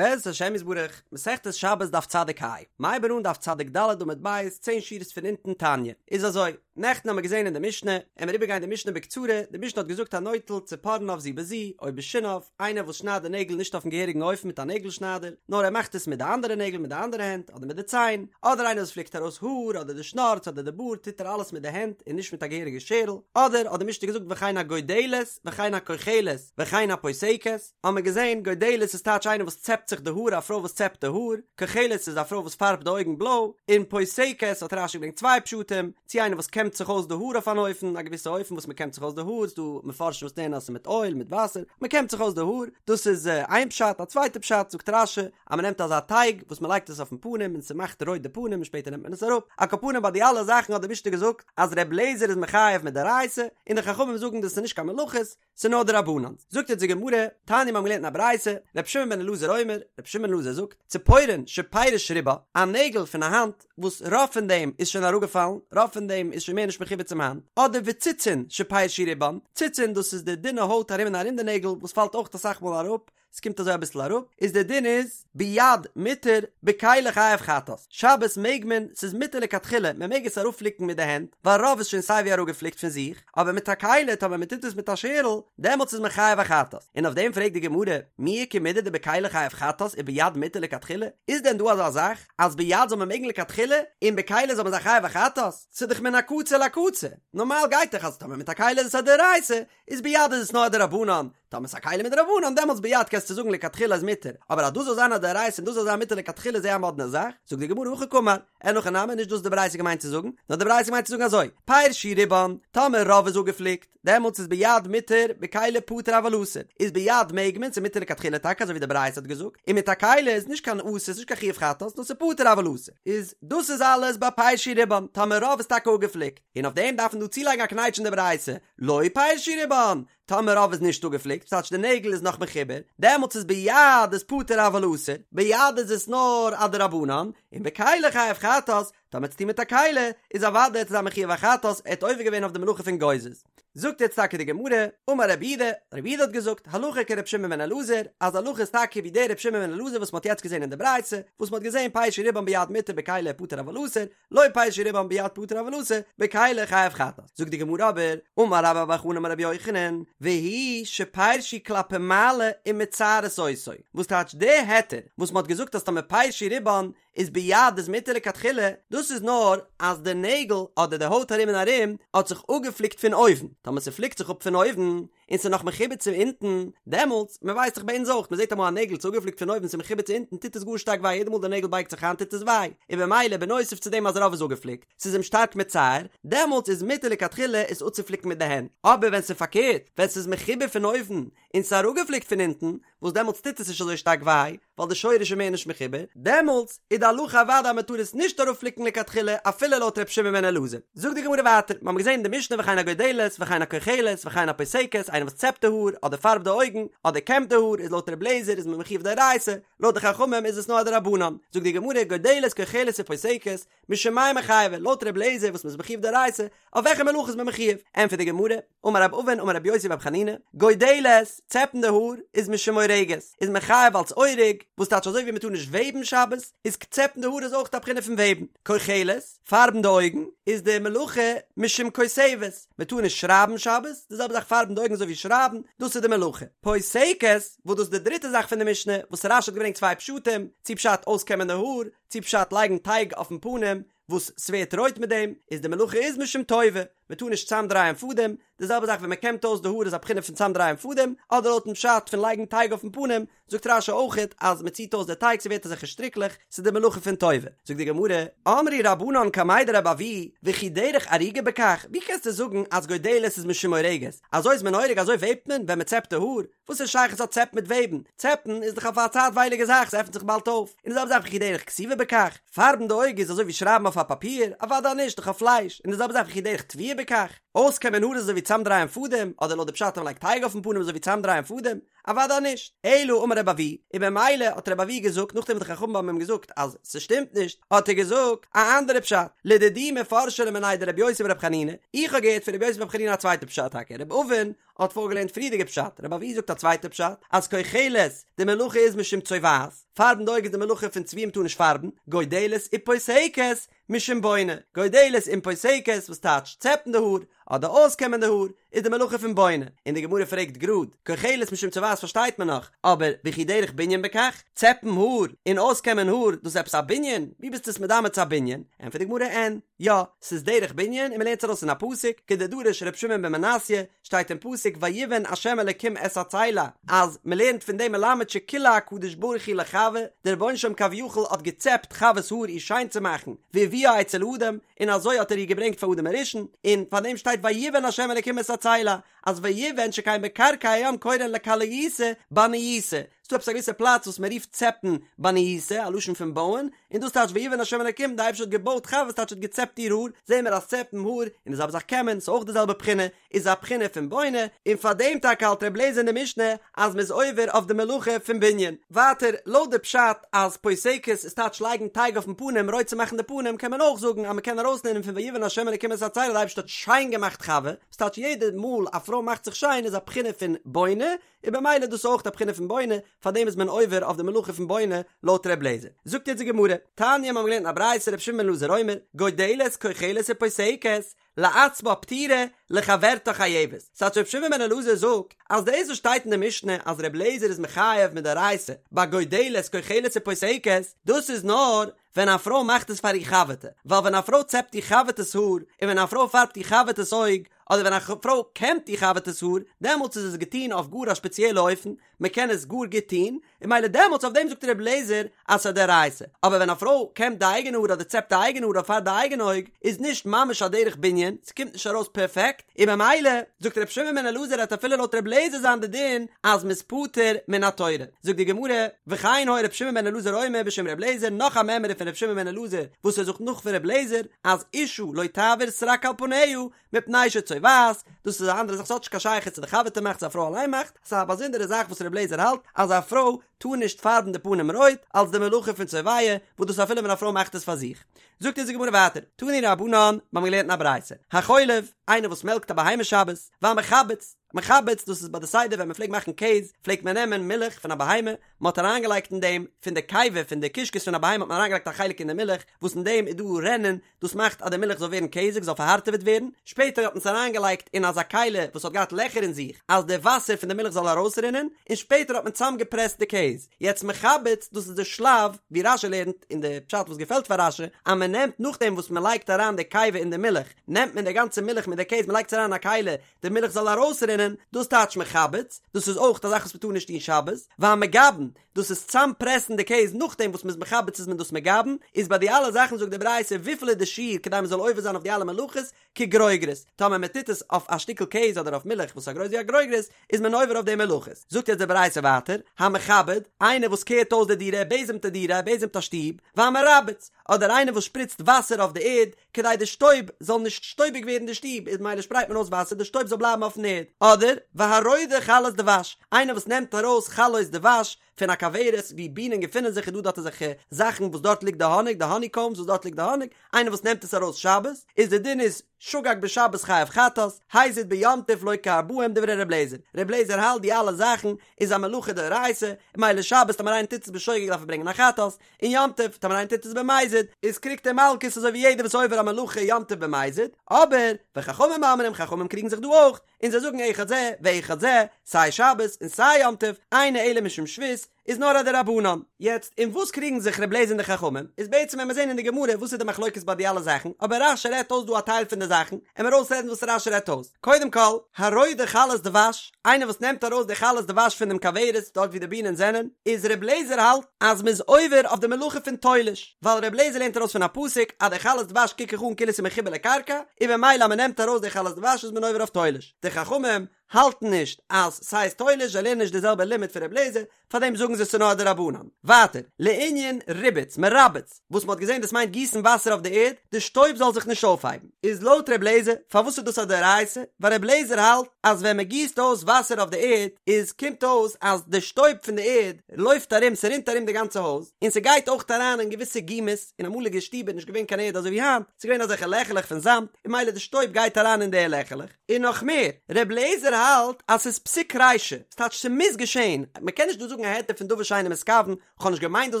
בעזרת השם יתברך, מסכת שבת דף צדיק ה, מ'הייבן אן דף צדיק ד' עמוד ב', צען שורות פון אונטן תניא, איז אזוי, נעכטן האמיר געזען אין די משנה, עמיר איבערגיין די משנה בקצרה, די משנה האט געזאגט הנוטל צפרניו זו בזו, או בשיניו, איינער וואס שניידט די נעגל נישט אויפן געהעריגן אופן מיט א נעגל שניידער, נאר ער מאכט עס מיט די אנדערע נעגל מיט די אנדערע הענט, אדער מיט די ציין, אדער איינער וואס פליקט ארויס האר, אדער די שנארץ אדער די בארד טוט ער אלעס מיט די הענט און נישט מיט א געהעריגע שערל, אדער האט די משנה געזאגט וכן הגודלת וכן הכוחלת וכן הפוסקת, האט מען געזען, גודלת איז טייטש איינער וואס צעפט זיך די האר, א פרוי וואס צעפט די האר, כוחלת איז א פרוי וואס פארבט די אויגן בלוי, און פוסקת האט רש"י געברענגט צוויי פשטים, צי איינער וואס קעמט זיך אויס די האר אויף אן אופן, א געוויסע אופן וואס מען קעמט זיך אויס די האר, ס'דא מפרשים וואס לערנען אז ס'איז מיט אויל, מיט וואסער, מען קעמט זיך אויס די האר, דאס איז איין פשט, א צווייטע פשט זאגט רש"י, אז מען נעמט אזא טייג וואס מען לייגט עס אויפן פנים און ס'מאכט רויט די פנים און שפעטער נעמט מען עס אראפ, על כל פנים ביי די אלע זאכן האט די משנה געזאגט אז ר' אליעזר איז מחייב מדאורייתא, און די חכמים זאגן דאס איז נישט קיין מלאכות, ס'איז נאר דרבנן. זאגט אונז די גמרא, תניא מיר האבן געלערנט אין א ברייתא, ר' שמעון בן אלעזר אומר, ר' שמעון בן אלעזר זאגט, ציפורן שפירש רובה, א נעגל פון א האנט וואס רוב פון דעם איז שוין אראפגעפאלן, רוב פון דעם איז שוין מער נישט מחובר צום האנט, אדער וציצין שפירשו רובן, ציצין דאס איז די דינע הויט ארום און ארום די נעגל וואס פאלט אויך אסאך מאל אראפ, ס'קומט אזוי אביסל אראפ, איז דער דין איז, ביד מותר, בכלי חייב חטאת, שבת מעג מען, ס'איז מותר לכתחילה, מען מעג עס אראפפליקן מיט די הענט, ווייל רוב איז שוין סייווי אראפגעפליקט פון זיך, אבער מיט א כלי, טאמער מען טוט עס מיט א שערל, דעמאלטס איז מען חייב א חטאת. און אויף דעם פרעגט די גמרא, מי איכא מידי דבכלי חייב חטאת וביד מותר לכתחילה, איז דען דא אזא זאך, אז ביד זאל מען מעגן לכתחילה, און בכלי זאל מען זיין חייב א חטאת? ס'איז דאך מן הקצה לקצה, נארמאל גייט דאך אז טאמער מיט א כלי איז עס א דאורייתא, איז ביד איז עס נאר א דרבנן, טאמער ס'איז א כלי מדרבנן דעמאלטס ביד קענסטו זאגן לכתחילה איז מותר, אבער אז דאס זאל זיין א דאורייתא און דאס זאל זיין מותר לכתחילה איז זייער א מאדנע זאך, זאגט די גמרא הכי קאמר, אין הכי נמי נישט דאס די ברייתא געמיינט צו זאגן, נאר די ברייתא מיינט צו זאגן אזוי, פירשו רובן, טאמער רוב איז אפגעפליקט, דעמאלטס איז ביד מותר, בכלי פטור אבל אסור, איז ביד מעג מען, ס'איז מותר לכתחילה טאקע אזוי ווי די ברייתא האט געזאגט, און מיט א כלי איז נישט קיין אסור, ס'איז נישט קיין חיוב חטאת, נאר ס'איז פטור אבל אסור. איז דאס איז אלעס ביי פירשו רובן, טאמער רוב איז טאקע אפגעפליקט, און אויף דעם דארף מען דא צולייגן א קנייטש אין די ברייתא, לא פירשו רובן, טאמער רוב איז נישט אפגעפליקט, ס'טייטש די נעגל איז נאך מחובר, דעמאלטס איז ביד איז פטור אבל אסור, ביד איז עס נאר א דרבנן, און בכלי חייב חטאת, טאמער צו טון מיט א כלי, איז אוודאי ער איז מחויב א חטאת, ער האט עובר געווען אויף די מלאכה פון גוזז. זאגט יעצט טאקע די גמרא, אמר רב יהודה, רב יהודה האט געזאגט, הלכה כר' שמעון בן אלעזר, אז הלכה איז טאקע ווי דער ר' שמעון בן אלעזר וואס מ'האט יעצט געזען אין די ברייתא, וואס מ'האט געזען פירשו רובן ביד מותר בכלי פטור אבל אסור, לא פירשו רובן ביד פטור אבל אסור, בכלי חייב חטאת. זאגט די גמרא אבער, אמר רבה בר בר חנה אמר רבי יוחנן, והוא שפירשו כלפי מעלה ומצערות אותו, וואס טייטש די היתר וואס מ'האט געזאגט אז טאמער פירשו רובן איז ביד איז מותר לכתחילה, דאס איז נאר אז די נעגל אדער די הויט ארום און ארום האט זיך אפגעפליקט פון אויבן, טאמער ס'פליקט זיך אפ פון אויבן, און ס'איז נאך מחובר צו אונטן, דעמאלטס, מען ווייסט דאך ביי אונז אויך, מען זעט אמאל א נעגל ס'איז אפגעפליקט פון אויבן ס'איז מחובר צו אונטן טוט עס גאר שטארק וויי, יעדע מאל די נעגל בייגט זיך איין טוט עס וויי, און במילא בנוסף צו דעם אז רוב איז אפגעפליקט, ס'איז אים שטארק מצער, דעמאלטס איז מותר לכתחילה עס אפצופליקן מיט די הענט, אבער ווען ס'איז פארקערט, ווען ס'איז מחובר פון אויבן, און ס'איז אראפגעפליקט פון אונטן, וואס דעמאלטס טוט עס נישט אזוי שטארק וויי, ווייל די שורש איז מער נישט מחובר, דעמאלטס איז די הלכה אוודאי אז מען טאר עס נישט אראפפליקן לכתחילה אפילו לויט ר' שמעון בן אלעזר. זאגט די גמרא ווייטער, מיר האבן געזען אין די משנה וכן הגודלת וכן הכוחלת וכן הפוסקת, איינער וואס צעפט די האר, אדער פארבט די אויגן, אדער קעמט די האר, איז לויט ר' אליעזר איז מען מחויב דאורייתא, לויט די חכמים איז עס נאר א דרבנן. זאגט די גמרא, גודלת כוחלת ופוסקת, משום מאי מיחייבי, לויט ר' אליעזר וואס מען איז מחויב דאורייתא, אויף וועלכע מלאכה איז מען מחויב? ענטפערט די גמרא, אמר רב אבין אמר רבי יוסי ברבי חנינא, גודלת, צעפן די האר, איז משום אורגת, איז מען חייב אלס אורג, וואס טייטש אזוי ווי מען טאר נישט וועבן שבת, איז צעפן די האר איז אויך א בחינה פון וועבן, כוחלת, פארבן די אויגן, איז די מלאכה משום כותבת, מען טאר נישט שרייבן שבת, די זעלבע זאך פארבן די אויגן אזוי ווי שרייבן, דאס איז די מלאכה. פוסקת, וואס דאס איז די דריטע זאך פון די משנה, וואס רש"י האט געברענגט צוויי פשטים, צו פשט אויסקעמען די האר, צו פשט לייגן טייג אויפן פנים, וואס ס'ווערט רויט מיט דעם, איז די מלאכה איז משום טווה, מ'טאר נישט צאמדרייען פאדעם, די זעלבע זאך ווען מ'קעמט אויס די האר איז א בחינה פון צאמדרייען פאדעם, אדער לויטן פשט פון לייגן טייג אויפן פנים, זאגט רש"י אויכעט אז מ'ציט אויס די טייג ס'ווערט אזעלכע שטריקלעך, ס'איז די מלאכה פון טווה. זאגט די גמרא, אמרו רבנן קמיה דרבי אבהו, וכי דרך אריגה בכך, ווי קענסטו זאגן אז גודלת איז משום אורגת, אזוי איז מען אורג אזוי וועבט מען ווען מ'צעפט די האר, וואס איז שייכות א צעפ מיט וועבן? צעפן איז דאך אויף א צייטווייליגע זאך, ס'עפנט זיך באלד אויף. און די זעלבע זאך וכי דרך כתיבה בכך, פארבן די אויג איז אזוי ווי שרייבן אויף א פאפיר? אוודאי נישט, דאך אויף פלייש. און די זעלבע זאך וכי דרך טוויה בכך. אויסקעמען האר איז אזוי ווי צאמדרייען פאדעם, אדער לויט די פשט אז מ'לייגט טייג אויפן פנים איז אזוי ווי צאמדרייען פאדעם? אוודאי נישט. אלא אמר רבי אבהו, און במילא האט רבי אבהו געזאגט נאכדעם וואס די חכמים האבן אים געזאגט אז ס'שטימט נישט, האט ער געזאגט א אנדערע פשט, לדידי מפרשא לי מיניה דרבי יוסי ברבי חנינא, איך האב געהערט פון רבי יוסי ברבי חנינא א צווייטע פשט טאקע, רבי אבין האט פארגעלערנט פריערדיגע פשט, רבי אבהו זאגט א צווייטע פשט, אז כוחלת, די מלאכה איז משום צובעת, פארבן די אויג איז די מלאכה פון צביעה מ'טאר נישט פארבן, גודלת ופוסקת, משום בונה, גודלת און פוסקת וואס טייטש צעפן די האר, אדער אויסקעמען די האר, איז די מלאכה פון בונה, און די גמרא פרעגט גראד, כוחלת משום צובעת פארשטייט מען נאך, אבער וכי דרך בנין בכך? צעפן האר און אויסקעמען האר דאס איז עפעס א בנין? ווי ביסטו עס מדמה צו א בנין? ענטפערט די גמרא אין, יא, ס'איז דרך בנין און מ'לערנט עס ארויס אין א פסוק, כדדרש ר' שמעון בן מנסיא, שטייט אין פסוק ויבן ה' אלקים את הצלע, אז מ'לערנט פון דעם מלמד שכילה הקדוש ברוך הוא לחוה, דער רבונו של עולם כביכול האט געצעפט חוה'ס האר איר שיין צו מאכן, והביאה אצל אדם, און אזוי האט ער איר געברענגט פאר אדם הראשון, און פאר דעם שטייט ויבן ה' אלקים את הצלע, אז ויבן שכן בקרקע הים קורין לכליותא בניותא, ס'דא עפעס א געוויסע פלאץ וואס מ'רופט צעפן בניותא, א לשון פון בויען, און דאס טייטש ויבן ה' אלקים, די אייבערשטער האט געבויט חוה וואס טייטש האט געצעפט איר האר, זעהן מיר אז צעפן האר, און די זעלבע זאך קעמען, ס'איז אויך די זעלבע בחינה, איז א בחינה פון בונה, און פאר דעם טאקע האלט ר' לעזער אין די משנה אז מ'איז עובר אויף די מלאכה פון בנין. ווייטער, לויט די פשט אז פוסקת איז טייטש לייגן טייג אויפן פנים רויט צו מאכן די פנים קען מען אויך זאגן אז מ'קען ארויסלערנען פון ויבן ה' אלקים את הצלע די אייבערשטער האט שיין געמאכט חוה, וואס טייטש יעדע מאל א פרוי מאכט זיך שיין איז א בחינה פון בונה, און במילא דאס איז אויך א בחינה פון בונה, פארדעם איז מען עובר אויף די מלאכה פון בונה לויט ר' לעזער. זאגט יעצט די גמרא, תניא מיר האבן געלערנט אין א ברייתא ר' שמעון בן אלעזר אומר, גודלת כוחלת ופוסקת, לעצמה פטורה, לחברתה חייבת. ס'טייטש ר' שמעון בן אלעזר זאגט אז דאס וואס שטייט אין די משנה אז ר' לעזער איז מחייב מדאורייתא ביי גודלת כוחלת ופוסקת, דאס איז נאר ווען א פרוי מאכט עס פאר איר חבר'טע, ווייל ווען א פרוי צעפט איר חבר'טעס האר, און ווען א פרוי פארבט איר חבר'טעס אויג, אדער ווען א פרוי קעמט איר חבר'טעס האר, דעמאלטס איז עס געטון אויף גאר א שפעציעלע אופן, מען קען עס גאר גוט טון, און מילא דעמאלטס אויף דעם זאגט ר' אליעזר אז ס'איז א דאורייתא, אבער ווען א פרוי קעמט די אייגענע האר אדער צעפט די אייגענע האר אדער פארבט די אייגענע אויג, איז נישט ממש א דרך בנין, ס'קומט נישט ארויס פערפעקט, און במילא זאגט ר' שמעון בן אלעזר וועט אפילו לויט ר' אליעזר זיין די דין אז מ'איז פטור מן התורה. זאגט די גמרא, וכן היה ר' שמעון בן אלעזר אומר בשם ר' אליעזר, נאך א מימרא פון ר' שמעון בן אלעזר וואס ער זאגט נאך פון ר' אליעזר, אז אשה לא תעביר סרק על פניה, מפני שצובעת, דאס איז א אנדערע זאך ס'האט נישט קיין שייכות צו די חבר'טע מאכט צו א פרוי אליין מאכט, ס'איז א באזונדערע זאך וואס ר' אליעזר האלט אז א פרוי טאר נישט פארבן די פנים רויט אלס די מלאכה פון צובע, וואס דאס אפילו ווען א פרוי מאכט עס פאר זיך. זאגט אונז די גמרא ווייטער, תנו רבנן, מיר האבן געלערנט אין א ברייתא, החולב, איינער וואס מעלקט א בהמה שבת, והמחבץ, מחבץ דאס איז ביי די סדר ווען מען פלעגט מאכן קעז, פלעגט מען נעמען מילך פון א בהמה, מען האט אריינגעלייגט אין דעם, פון די קיבה פון די קישקעס פון א בהמה האט מען אריינגעלייגט א חלק אין די מילך, וואס אין דעם איז דא רענין, דאס מאכט אז די מילך זאל ווערן קעזיג, זאל פארהארטעוועט ווערן, שפעטער האט מען עס אריינגעלייגט אין אזא כלי וואס האט געהאט לעכער אין זיך, אז די וואסער פון די מילך זאל ארויסרינען, און שפעטער האט מען צוזאמגעפרעסט די קעז. יעצט מחבץ, דאס איז די שלב ווי רשי לערנט, און די פשט וואס געפעלט פאר רשי, אז מען נעמט נאכדעם וואס מען לייגט אריין די קיבה אין די מילך, נעמט מען די גאנצע מילך מיט די קעז מען לייגט עס אריין אין א כלי, די מילך זאל ארויסרינען, דאס טייטש מחבץ, דאס איז אויך א זאך וואס מען טאר נישט טון שבת, והמגבן, דאס איז צאם פרעסן די קעז נאכדעם וואס מען איז מחבץ איז מען דאס מגבן, איז ביי די אלע זאכן זאגט די ברייתא וויפיל איז די שיעור כדי מען זאל עובר זיין אויף די אלע מלאכות, כגרוגרת, טאמער מען טוט עס אויף א שטיקל קעז אדער אויף מילך וואס איז גרויס ווי א גרוגרת, איז מען עובר אויף די מלאכות. זאגט יעצט די ברייתא ווייטער, המכבד, איינער וואס קערט אויס די דירה, ער בעזעמט די דירה, ער בעזעמט א שטוב, והמרבץ, אדער איינער וואס שפריצט וואסער אויף די ערד, כדי די שטויב זאל נישט שטויביג ווערן די שטוב, איז מילא שפרייט מען אויס וואסער די שטויב זאל בלייבן אויפן ערד, אדער, והרודה חלות דבש, איינער וואס נעמט ארויס חלות דבש פון א כוורת ווי בינען געפינען זיך איז דא דארט אזעלכע זאכן וואס דארט ליגט די האניג, די האני קאומס וואס דארט ליגט די האניג, איינער וואס נעמט עס ארויס שבת, איז די דין איז, שגג בשבת חייב חטאת, הזיד ביום טוב לוקה ארבעים דברי ר' לעזער, ר' לעזער האלט די אלע זאכן איז א מלאכה דאורייתא, און מילא שבת טאמער איינער טוט עס בשוגג דארף ער ברענגען א חטאת, און יום טוב טאמער איינער טוט עס במזיד איז קריגט ער מלקות אזוי ווי יעדער וואס עובר א מלאכה יום טוב במזיד, אבער וחכמים אומרים חכמים קריגן זיך דא אויך, און זיי זאגן אחד זה ואחד זה, סיי שבת און סיי יום טוב, אינו אלא משום שבות, איז נאר א דרבנן. יעצט אין וואס קריגן זיך ר' לעזער און די חכמים, איז בעצם ווען מיר זעהן אין די גמרא וואס איז די מחלוקת ביי די אלע זאכן, אבער רש"י רעדט אויס דא א טייל פון די זאכן, עמיר אויסרעדן וואס רש"י רעדט אויס. קודם כל, הרודה חלות דבש, איינער וואס נעמט ארויס די חלות דבש פון דעם כוורת, דארט ווי די בינען זענען, איז ר' לעזער האלט אז מ'איז עובר אויף די מלאכה פון תולש, ווייל ר' לעזער לערנט ארויס פון א פסוק אז די חלות דבש קוק איך אן כאילו ס'איז מחובר לקרקע, און במילא אז מ'נעמט ארויס די חלות דבש איז מען עובר אויף תולש. די חכמים. האלטן נישט אז ס'הייסט תולש, זיי לערנען נישט די זעלבע לימוד פון ר' אליעזר, פארדעם זאגן זיי ס'נאר א דרבנן. ווייטער, לענין ריבוץ, מרבץ, וואס מ'האט געזען דאס מיינט גיסן וואסער אויף די ערד, די שטויב זאל זיך נישט אויפהייבן. איז לויט ר' אליעזר, פארוואס איז דאס א דאורייתא? ווייל ר' אליעזר האלט אז ווען מ'גיסט אויס וואסער אויף די ערד, איז קומט אויס אז די שטויב פון די ערד לויפט ארום, ס'רינט ארום די גאנצע הויז, און ס'גייט אויך אריין אין געוויסע גומות, אין אמאליגע שטיבער איז נישט געווען קיין ערד אזוי ווי היינט, ס'איז געווען אזעלכע לעכעלעך פון זאמד, און ממילא די שטויב גייט אריין אין די לעכעלעך. און נאך מער, ר' אליעזר האלט אז ס'איז פסיק רישא, ס'טייטש ס'מוז געשען, מ'קען נישט דא זאגן א היתר פון דבר שאינו מתכוון, כ'האב נישט געמיינט דאס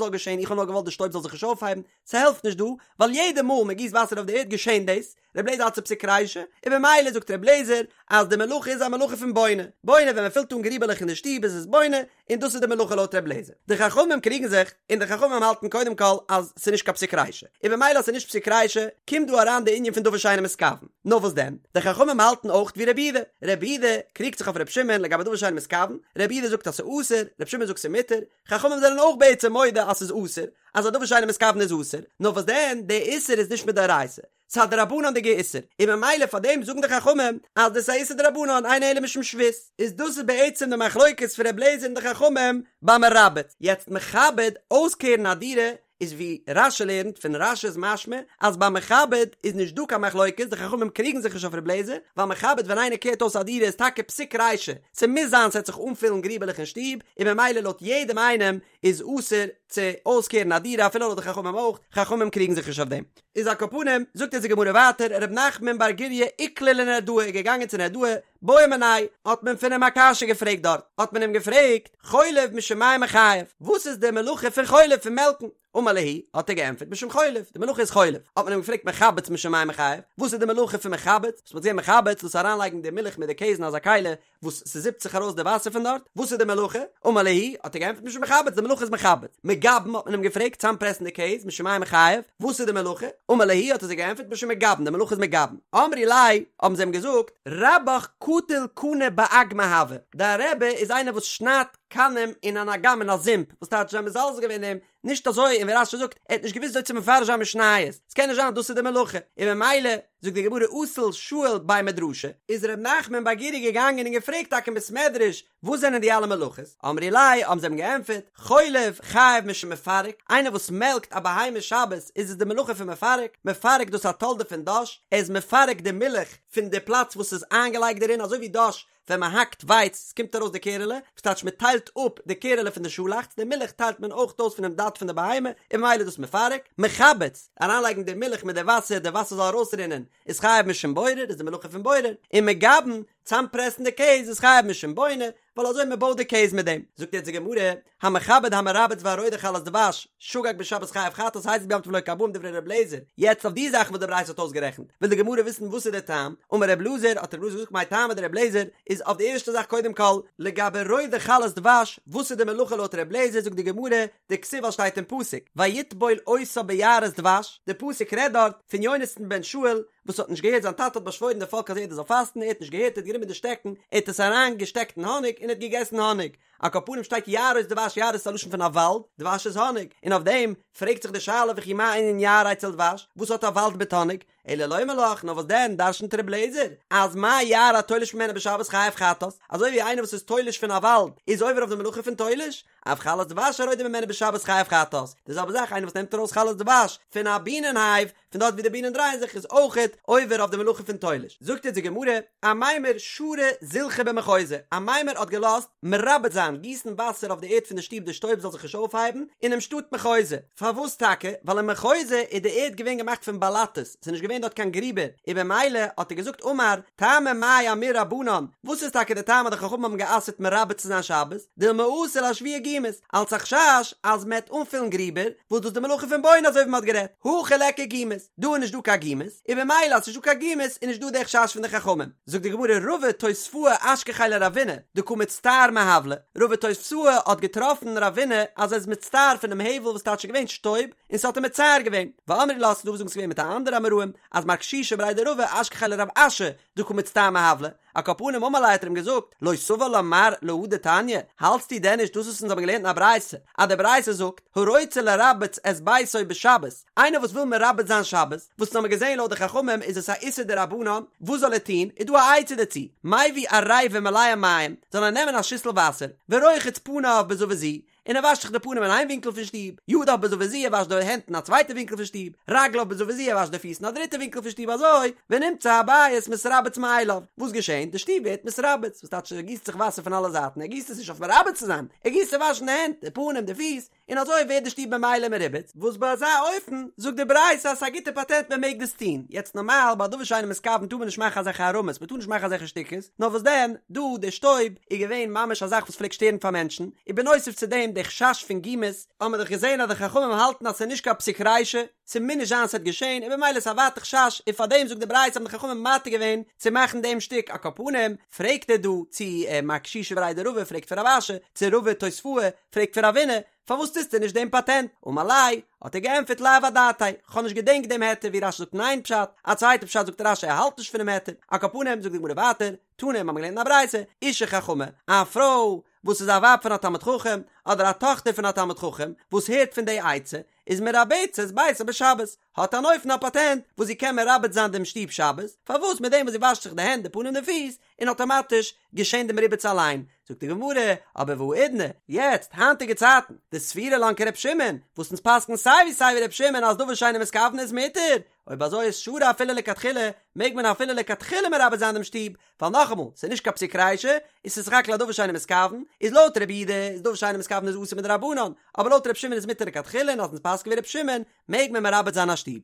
זאל געשען, איך האב נאר געוואלט די שטויב זאל זיך נישט אויפהייבן, ס'העלפט נישט דא, ווייל יעדע מאל מ'גיסט וואסער אויף די ערד געשען דאס, ר' אליעזר האלט ס'איז פסיק רישא, און במילא זאגט ר' אליעזר אז די מלאכה איז א מלאכה פון בונה, בונה ווען מ'פילט אן גריבעלעך אין די שטוב איז עס בונה, און דאס איז די מלאכה לויט ר' אליעזר. די חכמים קריגן זיך, און די חכמים האלטן קודם כל אז ס'איז נישט קיין פסיק רישא, און במילא אז ס'איז נישט פסיק רישא, קומט דא אריין די ענין פון דבר שאינו מתכוון. נאר וואס דען? די חכמים האלטן אויך ווי רבי יהודה. רבי יהודה קריגט זיך אויף רבי שמעון לגבי דבר שאינו מתכוון, רבי יהודה זאגט אז ס'איז אסור, רבי שמעון זאגט ס'איז מותר, חכמים זענען אויך בעצם מודה אז ס'איז אסור, אז א דבר שאינו מתכוון איז אסור, נאר וואס דען, די איסור איז נישט מדאורייתא, ס'איז א דרבנן'דיגע איסור, און ממילא פאר דעם זאגן די חכמים אז דאס איז א איסור דרבנן אינו אלא משום שבות, איז דאס איז בעצם די מחלוקת פון ר' אליעזר און די חכמים ביי מרבץ. יעצט מכבד, אויסקערן א דירה, איז ווי רש"י לערנט, פון רש"י איז משמע אז ביי מכבד איז נישט דא קיין מחלוקת, די חכמים קריגן זיך נישט אויף ר' אליעזר, ווייל מכבד ווען איינער קערט אויס א דירה איז טאקע פסיק רישא, ס'מוז זיין ס'עט זיך אנפילן גריבעלעך אין שטוב, און ממילא לויט יעדעם איינעם איז אסור צו אויסקערן א דירה אפילו לויט די חכמים אויך, חכמים קריגן זיך נישט אויף דעם. איז על כל פנים, זאגט אונז די גמרא ווייטער, ר' נחמן בר גוריא איקלע לנהרדעא איז געגאנגען צו נהרדעא, בעו מיניה, האט מען פון אים א קשיא געפרעגט דארט, האט מען אים געפרעגט, חולב משום מאי מיחייב, וואס איז די מלאכה פון חולב פון מעלקן? אמר להו, האט ער געענטפערט, משום חולב, די מלאכה איז חולב, האט מען אים געפרעגט מחבץ משום מאי מיחייב, וואס איז די מלאכה פון מחבץ, וואס מ'האט געזען מחבץ, דאס אריינלייגן די מילך מיט די קעז אין אזא כלי, וואס ס'זיפט זיך ארויס די וואסער פון דארט, וואס איז די מלאכה? אמר להו, האט ער געענטפערט משום מחבץ, די מלאכה איז מחבץ. מגבן האט מען אים געפרעגט, צאמפרעסן די קעז, משום מאי מיחייב, וואס איז די מלאכה? אמר להו, האט ער זיי געענטפערט משום מגבן, די מלאכה איז מגבן. אמרי ליה, האבן זיי אים געזאגט, רבך קטיל קני באגמא הוה, דיין רבי איז איינער וואס שניידט קנים אין אן אגם אין א זומפ, וואס טייטש זיי האבן מזלזל געווען אין אים, נישט אזוי, און ווי רש"י זאגט, ער האט נישט געוואוסט וויאזוי צו מפרש זיין משניות, ס'קען נישט זיין אז דאס איז די מלאכה, און ממילא, זאגט די גמרא אזל שאיל בי מדרשא, איז ר' נחמן בר גוריא געגאנגען און געפרעגט טאקע אין בית מדרש וואס זענען די אלע מלאכות, אמרי ליה האבן זיי אים געענטפערט, חולב חייב משום מפרק, איינער וואס מעלקט א בהמה שבת איז עס די מלאכה פון מפרק, מפרק דאס א תולדה פון דש, ער איז מפרק די מילך פון די פלאץ וואס איז איינגעלייגט דערין אזוי ווי דש ווען מען האקט ווייץ ס'קומט ארויס די קערעלע, וואס טייטש מען טיילט אפ די קערעלע פון די שאלאכץ, די מילך טיילט מען אויך אויס פונעם דד פון די בהמה, און ממילא איז דאס מפרק, מחבץ, אריינלייגן די מילך מיט די וואסער, די וואסער זאל ארויסרינען, איז חייב משום בורר, איז די מלאכה פון בורר, און מגבן, צאמפרעסן די קעז, איז חייב משום בונה, ווייל אזוי מען בויט די קעז מיט דעם. זאגט יעצט די גמרא, המכבד המרבץ והרודה חלת דבש, שגג בשבת חייב חטאת הזיד ביום טוב לוקה ארבעים דברי ר' אליעזר, יעצט אויף די זאכן וואס די ברייתא האט אויסגערעכנט, וויל די גמרא וויסן וואס איז דער טעם, אמר ר' אלעזר, האט ר' אלעזר געזאגט מאי טעמא דר' אליעזר, איז אויף די ערשטע זאך קודם כל, לגבי רודה חלת דבש, וואס איז די מלאכה לויט ר' אליעזר, זאגט די גמרא, דכתיב ווייל שטייט אין פסוק, ויטבול אותה ביערות דבש, די פסוק רעדט דארט פון יונתן בן שאול, וואס האט נישט געהערט זיין טאטע האט באשוואוירן די פאלק אז יעדער זאל פאסטן, ער האט נישט געהערט, ער האט גענומען די שטעקן, ער האט עס אריין געשטעקט אין האניג און ער האט געגעסן האניג, על כל פנים שטייט יערות דבש יערות איז א לשון פון א וואלד, דבש איז האניג, און אויף דעם פרעגט זיך די שאלה וכי מה ענין יער אצל דבש, וואס האט א וואלד מיט האניג? אלא לומר לך, נאר וואס דען דרשנ'ט ר' אליעזר אז מה יער התולש ממנו בשבת חייב חטאת, אזוי ווי איינער וואס איז תולש פון א וואלד איז עובר אויף די מלאכה פון תולש, אף חלת דבש הרודה ממנה בשבת חייב חטאת, די זעלבע זאך איינער וואס נעמט ארויס חלת דבש פון א בינען הייוו, פון דארט ווי די בינען דרייען זיך איז אויכעט עובר אויף די מלאכה פון תולש. זאגט אונז די גמרא, אמימר שרא זילחא במחוזא, אמימר האט געלאזט מרבץ זיין, גיסן וואסער אויף די ערד פון די שטוב די שטויב זאל זיך נישט אויפהייבן, אינעם שטאט מחוזא. פארוואס טאקע? ווייל אין מחוזא איז די ערד געווען געמאכט פון באלאטעס, ס'איז נישט געווען דארט קיין גריבער, און במילא האט ער געזאגט אמר, טעמא מאי אמור רבנן, וואס איז טאקע די טעם אז די חכמים האבן גע'אסר'ט מרבץ צו זיין שבת, דילמא אתי לאשוויי גומות, אלס א חשש אז מ'עט אנפילן גריבער, וואס דאס איז די מלאכה פון בונה אזוי ווי מ'האט גערעדט, הכא ליכא גומות, דא איז נישט דא קיין גומות, און במילא אז ס'נישט דא קיין גומות איז נישט דא די חשש פון די חכמים. זאגט די גמרא רבא תוספאה אשכחיה לרבינא דקא מצטער מהבלא, רבא תוספאה האט געטראפן רבינא אז ער איז מצטער פונעם הבל וואס טייטש ס'איז געווען שטויב און ס'האט אים מצער געווען, ואמרי לה ס'דא וואס זאגן ס'איז געווען מיט א אנדערע אמוראים אז מר קשישא בריה דרבא אשכחיה לרב אשי דקא מצטער מהבלא. על כל פנים אמר ליה האט ער אים געזאגט, לא סבר לה מר להא דתניא, האלטסטו דען נישט דאס וואס אונז האבן געלערנט אין א ברייתא, אז די ברייתא זאגט, הרוצה לרבץ את ביתו בשבת, איינער וואס וויל מרבץ זיין שבת, וואס אונז האבן געזען לויט די חכמים איז עס א איסור דרבנן, וואס זאל ער טון, איז דא א עצה דערצו, מביא עריבה מלאה מים, זאל ער נעמען א שיסל וואסער, ורוחץ פניו בזוית זו, און ער וואשט זיך די פנים אין איין ווינקל פון שטוב, ידיו בזוית זו, ער וואשט די הענט אין א צווייטע ווינקל פון שטוב, רגליו בזוית זו, ער וואשט די פיס אין א דריטע ווינקל פון שטוב, אזוי, ונמצא הבית מתרבץ מאליו, וואס געשענט? די שטוב ווערט מתרבץ, וואס טייטש ער גיסט זיך וואסער פון אלע זייטן, ער גיסט עס נישט אויף מרבץ צו זיין, ער גיסט צו וואשן די הענט, די פנים, די פיס, און אזוי ווערט די שטוב ממילא מרובץ, וואס ביי אזא אופן זאגט די ברייתא אז ס'איז א גוטע פאטענט מען מעג דאס טון, יעצט נארמאל ביי דבר שאינו מתכוון טאר מען נישט מאכן אזעלכע הערמות, מען טאר נישט מאכן אזעלכע שטיקעס, נאר וואס דען, דא די שטויב איז געווען ממש א זאך וואס פלעגט שטערן פאר מענטשן, און בנוסף צו דעם די חשש פון גומות, האבן מיר דאך געזען אז די חכמים האלטן אז ס'איז נישט קיין פסיק רישא, ס'מוז נישט זיין ס'וועט געשען, און במילא איז א ווייטע חשש, און פארדעם זאגט די ברייתא האבן די חכמים מתיר געווען צו מאכן דעם שטיק, על כל פנים, פרעגט ער דא צו מר קשישא בריה דרבא פרעגט פון רב אשי, צו רבא תוספאה, פרעגט פון רבינא, פארוואס טוסטו נישט דעם פאטענט? אמר ליה, האט ער געענטפערט לאו אדעתאי, כ'האב נישט געדענקט דעם היתר ווי רשי זאגט אין איין פשט, א צווייטע פשט זאגט רשי ער האלט נישט פונעם היתר, על כל פנים זאגט די גמרא ווייטער, תנא, מ'האבן געלערנט אין א ברייתא, אשה חכמה, א פרוי וואס איז א ווייב פון א תלמיד חכם, אדער א טאכטער פון א תלמיד חכם, וואס הערט פון די עצה, איז מרבצת ביתה בשבת, האט אן אופן א פאטענט וואס זי קען מרבץ זיין דעם שטוב שבת, פארוואס מיט דעם וואס זי וואשט זיך די הענט די פנים די פיס, און אטאמאטיש געשען דעם ריבוץ אליין, זאגט די גמרא, אבער והאידנא, יעצט, היינטיגע צייטן, דסבירא לן כר' שמעון, וואס אונז פסק'ן סיי ווי סיי ווי ר' שמעון אז דבר שאינו מתכוון איז מותר, אויב אזוי איז שרי אפילו לכתחילה, מעג מען אפילו לכתחילה מרבץ זיין דעם שטוב, ווייל נאכאמאל, ס'איז נישט קיין פסיק רישא, און ס'איז סך הכל א דבר שאינו מתכוון, איז לויט רבי יהודה איז דבר שאינו מתכוון איז אסור מדרבנן, אבער לויט ר' שמעון איז מותר לכתחילה און אז אונז פסק'ן ווי ר' שמעון, מעג מען מרבץ זיין א שטוב.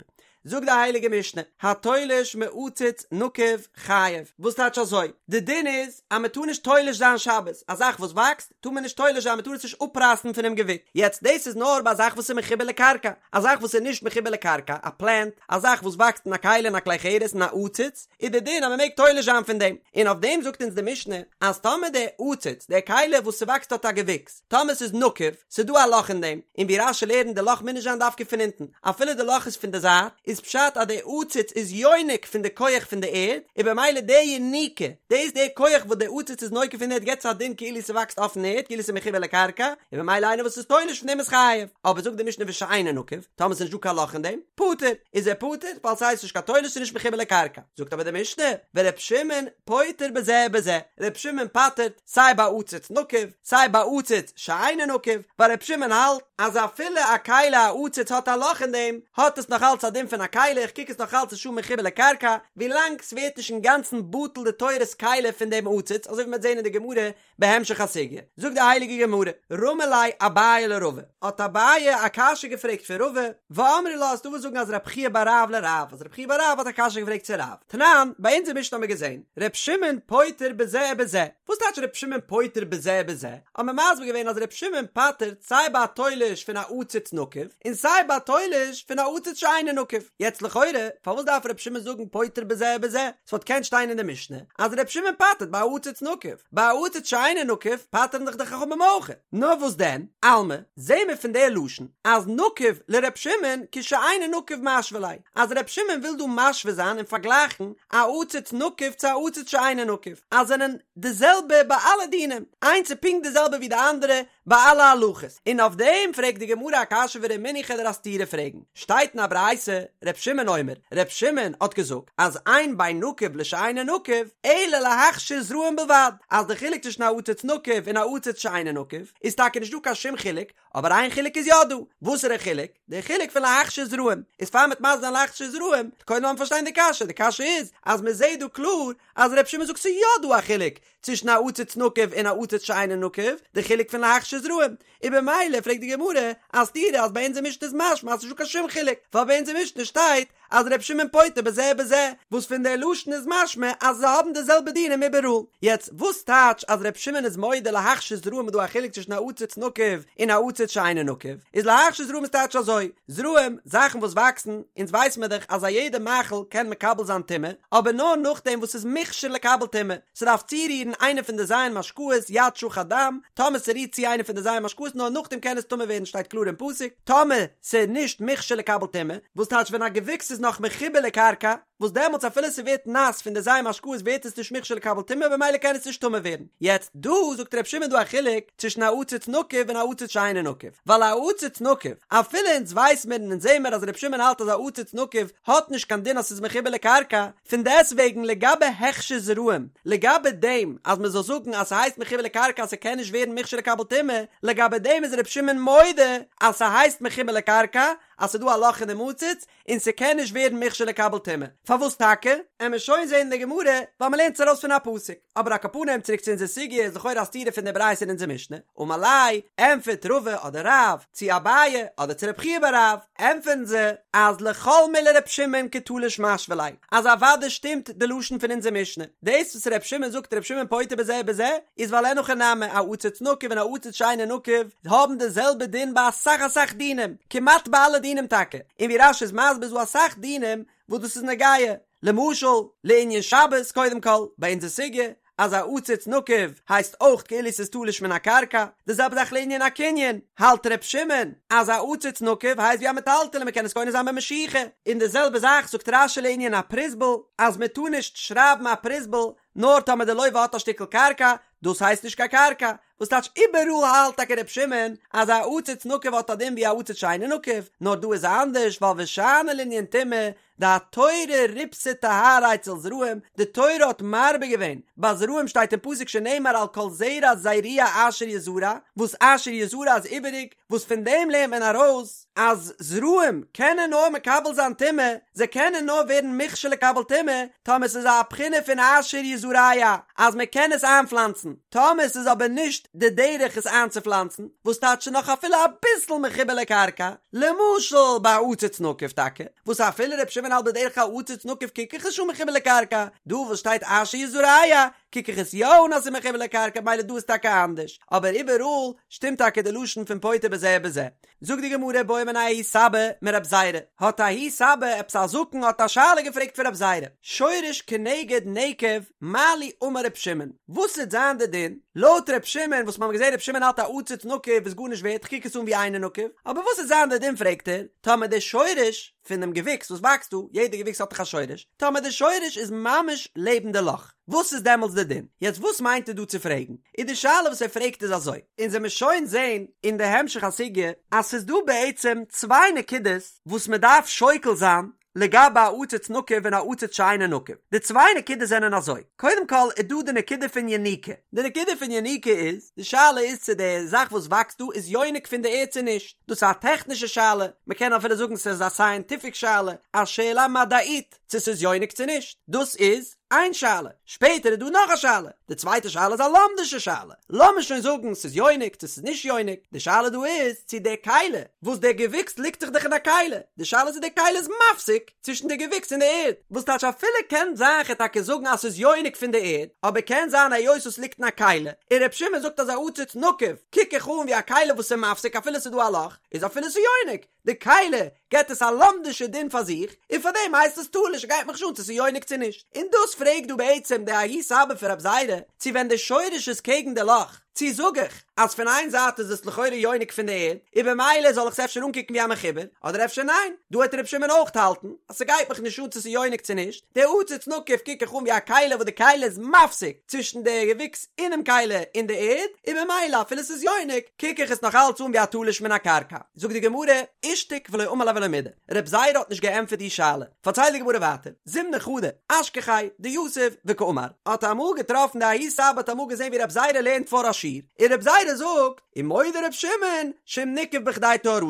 זאגט די הייליגע משנה, התולש מעציץ נקוב חייב, וואס טייטש אזוי? די דין איז אז מען טאר נישט תולש זיין שבת, א זאך וואס וואקסט טאר מען נישט תולש זיין, מען טאר עס נישט אפרייסן פונעם געוויקס, יעצט דאס איז נאר ביי א זאך וואס איז מחובר לקרקע, א זאך וואס איז נישט מחובר לקרקע, א פלענט, א זאך וואס וואקסט אין א כלי אין א כלי חרס אין א עציץ, איז די דין אז מען מעג תולש זיין פון דעם, און אויף דעם זאגט אונז די משנה אז טאמער די עציץ, די כלי וואס ס'וואקסט דארט א געוויקס, טאמער ס'איז נקוב, ס'איז דא א לאך אין דעם, און ווי רש"י לערנט די לאך מוז נישט זיין דווקא פון אונטן, אפילו די לאך איז פון די זייט, איז פשט אז די עציץ איז יונק פון די כח פון די ערד, און במילא די יניקה, דאס די כח וואס די עציץ איז נוקב פון די ערד געבט עס א דין כאילו ס'וואקסט אויפן ערד, כאילו ס'איז מחובר לקרקע, און במילא איינער וואס איז תולש פון דעם איז חייב. אבער זאגט די משנה ושאינו נקוב, טאמער ס'איז נישט דא קיין לאך אין דעם, פטור, איז ער פטור, ווייל ס'הייסט נישט קיין תולש ס'איז נישט מחובר לקרקע. זאגט אבער די משנה, ור' שמעון פוטר בזה ובזה, ר' שמעון פטר'ט סיי ביי עציץ נקוב, סיי ביי עציץ שאינו נקוב, ווייל ר' שמעון האלט אז אפילו א כלי א עציץ האט א לאך אין דעם, האט עס נאך אלץ א דין פון א כלי, איך קוק עס נאך אלץ איז שוין מחובר לקרקע, ווילאנג ס'ווערט נישט אינגאנצן בטל די תורת כלי פון דעם עציץ, אזוי ווי מ'וועט זען אין די גמרא בהמשך הסוגיא. זאגט די הייליגע גמרא, רמי ליה אביי לרבא, האט אביי א קשיא געפרעגט פון רבא, ואמרי לה ס'דא וואס זאגן אז רב חייא בר רב לרב, אז רב חייא בר רב האט א קשיא געפרעגט צו רב, תנן, ביי אונזער משנה האמיר געזען, ר' שמעון פוטר בזה ובזה, וואס טייטש ר' שמעון פוטר בזה ובזה? האט מען מסביר געווען אז ר' שמעון פטר'ט סיי ביי א תולש פון א עציץ נקוב, און סיי ביי א תולש פון א עציץ שאינו נקוב. יעצט לכאורה, פארוואס דארף ר' שמעון זאגן פוטר בזה ובזה? ס'וואלט געקענט שטיין אין די משנה אז ר' שמעון פטר'ט ביי א עציץ נקוב, ביי א עציץ שאינו נקוב פטר'ן דאך די חכמים אויך. נאר וואס דען, אלמא, זעהן מיר פון די לשון אז נקוב לר' שמעון כשאינו נקוב משוי ליה, אז ר' שמעון וויל דא משווה זיין און פארגלייכן א עציץ נקוב צו א עציץ שאינו נקוב, אז זענען די זעלבע ביי אלע דינים, איינס איז פונקט די זעלבע ווי די אנדערע ביי אלע הלכות, און אויף דעם פרעגט די גמרא א קשיא ורמינהי כ'וועל דיר א סתירה פרעגן, שטייט אין א ברייתא, ר' שמעון אומר, ר' שמעון האט געזאגט אז אין בין נקוב לשאינו נקוב, אלא להכשיר זרעים בלבד, אז די חילוק צווישן א עציץ נקוב און א עציץ שאינו נקוב, איז טאקע נישט דא קיין שום חילוק, אבער איין חילוק איז יא דא, וואסערע חילוק? די חילוק פון להכשיר זרעים, איז פאר מ'וועט מסביר זיין להכשיר זרעים, קודם לאמיר פארשטיין די קשיא, די קשיא איז אז מ'זעט דא קלאר אז ר' שמעון זאגט ס'איז יא דא א חילוק צווישן א עציץ נקוב און א עציץ שאינו נקוב, די חילוק פון להכשיר זרעים, און במילא פרעגט די גמרא א סתירה אז ביי אונזער משנה איז משמע אז ס'נישט דא קיין שום חילוק, ווייל ביי אונזער משנה שטייט אז ר' שמעון פוטר בזה ובזה, וואס פון די לשון איז משמע אז זיי האבן די זעלבע דינים איבעראל. יעצט, וואס טייטש אז ר' שמעון איז מודה להכשיר זרעים איז דא א חילוק צווישן א עציץ נקוב און א עציץ. עציץ שאינו נקוב, איז להכשיר זרעים איז טייטש אזוי, זרעים, זאכן וואס וואקסן, אונז ווייס מיר דאך אז א יעדע מאכל קען מקבל זיין טומאה, אבער נאר נאכדעם וואס ס'איז מוכשר לקבל טומאה, ס'דארף צורירן איינע פון די ז' משקאות, יד שחט דם, טאמער ס'רירט צו איינע פון די ז' משקאות נאר נאכדעם קען עס טמא ווערן שטייט קלאר אין פסוק, טאמער ס'איז נישט מוכשר לקבל טומאה, וואס טייטש ווען א געוויקס איז נאך מחובר לקרקע, וואס דעמאלטס אפילו ס'ווערט נאס פון די ז' משקאות ווערט עס נישט מוכשר לקבל טומאה במילא קען עס נישט טמא ווערן. יעצט דא זאגט ר' שמעון דא א חילוק צווישן א עציץ נקוב און א עציץ שאינו נקוב, ווייל א עציץ נקוב, אפילו אונז ווייס מיר און אונז זעהן מיר אז ר' שמעון האלט אז א עציץ נקוב האט נישט קיין דין אז ס'איז מחובר לקרקע, פון דעסטוועגן לגבי הכשר זרעים, לגבי דעם אז מ'זאל זאגן אז ס'הייסט מחובר לקרקע אז ס'קען נישט ווערן מוכשר לקבל טומאה, לגבי דעם איז ר' שמעון מודה אז ס'הייסט מחובר לקרקע, אז ס'דא א לאך אינעם עציץ, און ס'קען נישט ווערן מוכשר לקבל טומאה. פארוואס טאקע? עמיר שוין זעהן אין די גמרא, ווייל מ'לערנט עס ארויס פון א פסוק. אבער על כל פנים צוריק צו אונזער סוגיא איז לכאורה א סתירה פון די ברייתא אין אונזער משנה. אמר ליה, ענטפערט רבא אדער רב, צו אביי אדער צו רב חייא בר רב, ענטפערן זיי, אז לכל מילי ר' שמעון כתלוש משוי ליה, אז אוודאי שטימט די לשון פון אונזער משנה. דאס וואס ר' שמעון זאגט ר' שמעון פוטר בזה ובזה, איז ווייל אין הכי נמי, א עציץ נקוב און א עציץ שאינו נקוב, האבן די זעלבע דין ביי אסאך אסאך דינים, כמעט ביי אלע דינים טאקע, און ווי רש"י איז מסביר איז דא אסאך דינים וואס דאס איז נוגע, למשל לענין שבת קודם כל, ביי אונזער סוגיא אז א עציץ נקוב הייסט אויך כאילו ס'איז תלוש מן הקרקע, די זעלבע זאך לענין א קנין, האלט ר' שמעון אז א עציץ נקוב הייסט ווי א מטלטל מ'קען עס קונה זיין במשיכה, און די זעלבע זאך זאגט רש"י לענין א פרוזבול אז מ'טאר נישט שרייבן א פרוזבול נאר טאמער די לוה האט א שטיקל קרקע, דאס הייסט נישט קיין קרקע, וואס טייטש איבעראל האלט טאקע ר' שמעון אז א עציץ נקוב האט א דין ווי א עציץ שאינו נקוב, נאר דא איז אנדערש ווייל ושאני לענין טומאה דהתורה ריבתה טהרה אצל זרעים, די תורה האט מרבה געווען, ביי זרעים שטייט אין פסוק שנאמר על כל זרע זרוע אשר יזרע, וואס אשר יזרע איז איבעריג, וואס פון דעם לערנט מען ארויס אז זרעים קענען נאר מקבל זיין טומאה, זיי קענען נאר ווערן מוכשר לקבל טומאה טאמער ס'איז א בחינה פון אשר יזרע אז מען קען עס איינפלאנצן, טאמער ס'איז אבער נישט די דרך עס איינצופלאנצן, וואס טייטש נאך אפילו אביסל מחובר לקרקע, למשל ביי א עציץ נקוב טאקע, וואס אפילו ר' שמעון האלט בדרך כלל עציץ נקוב קוק איך עס נישט אן מחובר לקרקע, דא וואס שטייט אשר יזרע קוק איך עס יא אן אז ס'איז מחובר לקרקע מילא דא איז טאקע אנדערש, אבער איבעראל שטימט טאקע די לשון פון פוטר בזה ובזה. זאגט די גמרא בעא מיניה ההוא סבא מרב זירא, האט ההוא סבא עפעס א זקן האט א שאלה געפרעגט פון רב זירא, שורש כנגד נקב מה לי אמר ר' שמעון, וואס וועט זיין די דין לויט ר' שמעון וואס מ'האט געזען ר' שמעון האלט א עציץ נקוב איז גארנישט ווערט כ'קוק עס אן ווי אינו נקוב, אבער וואס וועט זיין די דין פרעגט ער, טאמער די שורש פונעם געוויקס וואס וואקסט דא, יעדע געוויקס האט דאך א שורש, טאמער די שורש איז ממש לעבן די לאך, וואס איז דעמאלטס די דין? יעצט וואס מיינט ער דא צו פרעגן? איז די שאלה וואס ער פרעגט איז אזוי, אונז וועמיר שוין זעהן אין די המשך הסוגיא אז ס'איז דא בעצם צוויי נקודות וואס מ'דארף שוקל זיין לגבי א עציץ נקוב און א עציץ שאינו נקוב, די צוויי נקודות זענען אזוי, קודם כל איז דא די נקודה פון יניקה, די נקודה פון יניקה איז, די שאלה איז צו די זאך וואס וואקסט דא איז יונק פון די ערד צו נישט, דאס איז א טעכנישע שאלה, מ'קען אפילו זאגן ס'איז א סייענטיפיק שאלה, א שאלה מדעית, צו ס'איז יונק צו נישט, דאס איז איין שאלה, שפעטער איז דא נאך א שאלה, די צווייטע שאלה איז א לומדישע שאלה, לאמיר שוין זאגן ס'איז יונק צו ס'איז נישט יונק, די שאלה דא איז צו די כלי וואס דער געוויקס ליגט זיך דאך אין א כלי, די שאלה איז צו די כלי איז מפסיק צווישן די געוויקס און די ערד, וואס טייטש אפילו קען זיין כ'על טאקע זאגן אז ס'איז יונק פון די ערד, אבער קען זיין היות עס ליגט אין א כלי, און ר' שמעון זאגט אז א עציץ נקוב קוק איך אן ווי א כלי וואס איז מפסיק אפילו ס'איז דא א לאך, איז אפילו ס'איז יונק, די כלי געט עס א לומדישע דין פאר זיך, און פאר דעם הייסט עס תלוש, גייט מיך נישט אן צו ס'איז יונק צו נישט. און דאס פרעגט דא בעצם די ההוא סבא פון רב זירא, צו ווען די שורש איז קעגן די לאך, צו זאג איך אז פון איין זייט איז עס לכאורה יונק פון די ערד, און במילא זאל איך עס אפשר אנקוקן ווי א מחובר, אדער אפשר ניין, דא העט ר' שמעון אויך האלטן אז ס'גייט מיך נישט אן צו ס'איז יונק צו נישט, די עציץ נקוב קוק איך אן ווי א כלי וואס די כלי איז מפסיק צווישן די געוויקס אינעם כלי און די ערד, און במילא אפילו ס'איז יונק קוק איך עס נאך אלץ אן ווי א תלוש מן הקרקע. זאגט די גמרא, אישתיק ולא אמר ליה ולא מידי, רב זירא האט נישט געענטפערט די שאלה, פארציילט די גמרא ווייטער, זימנא חדא, אשכחיה דיתיב וקאמר, האט אמאל געטראפן די ההוא סבא האט אמאל געזען ווי רב זירא לערנט פאר א שיעור, און רב זירא זאגט, ומודה רב שמעון שאם ניקב בכדי טהרתו,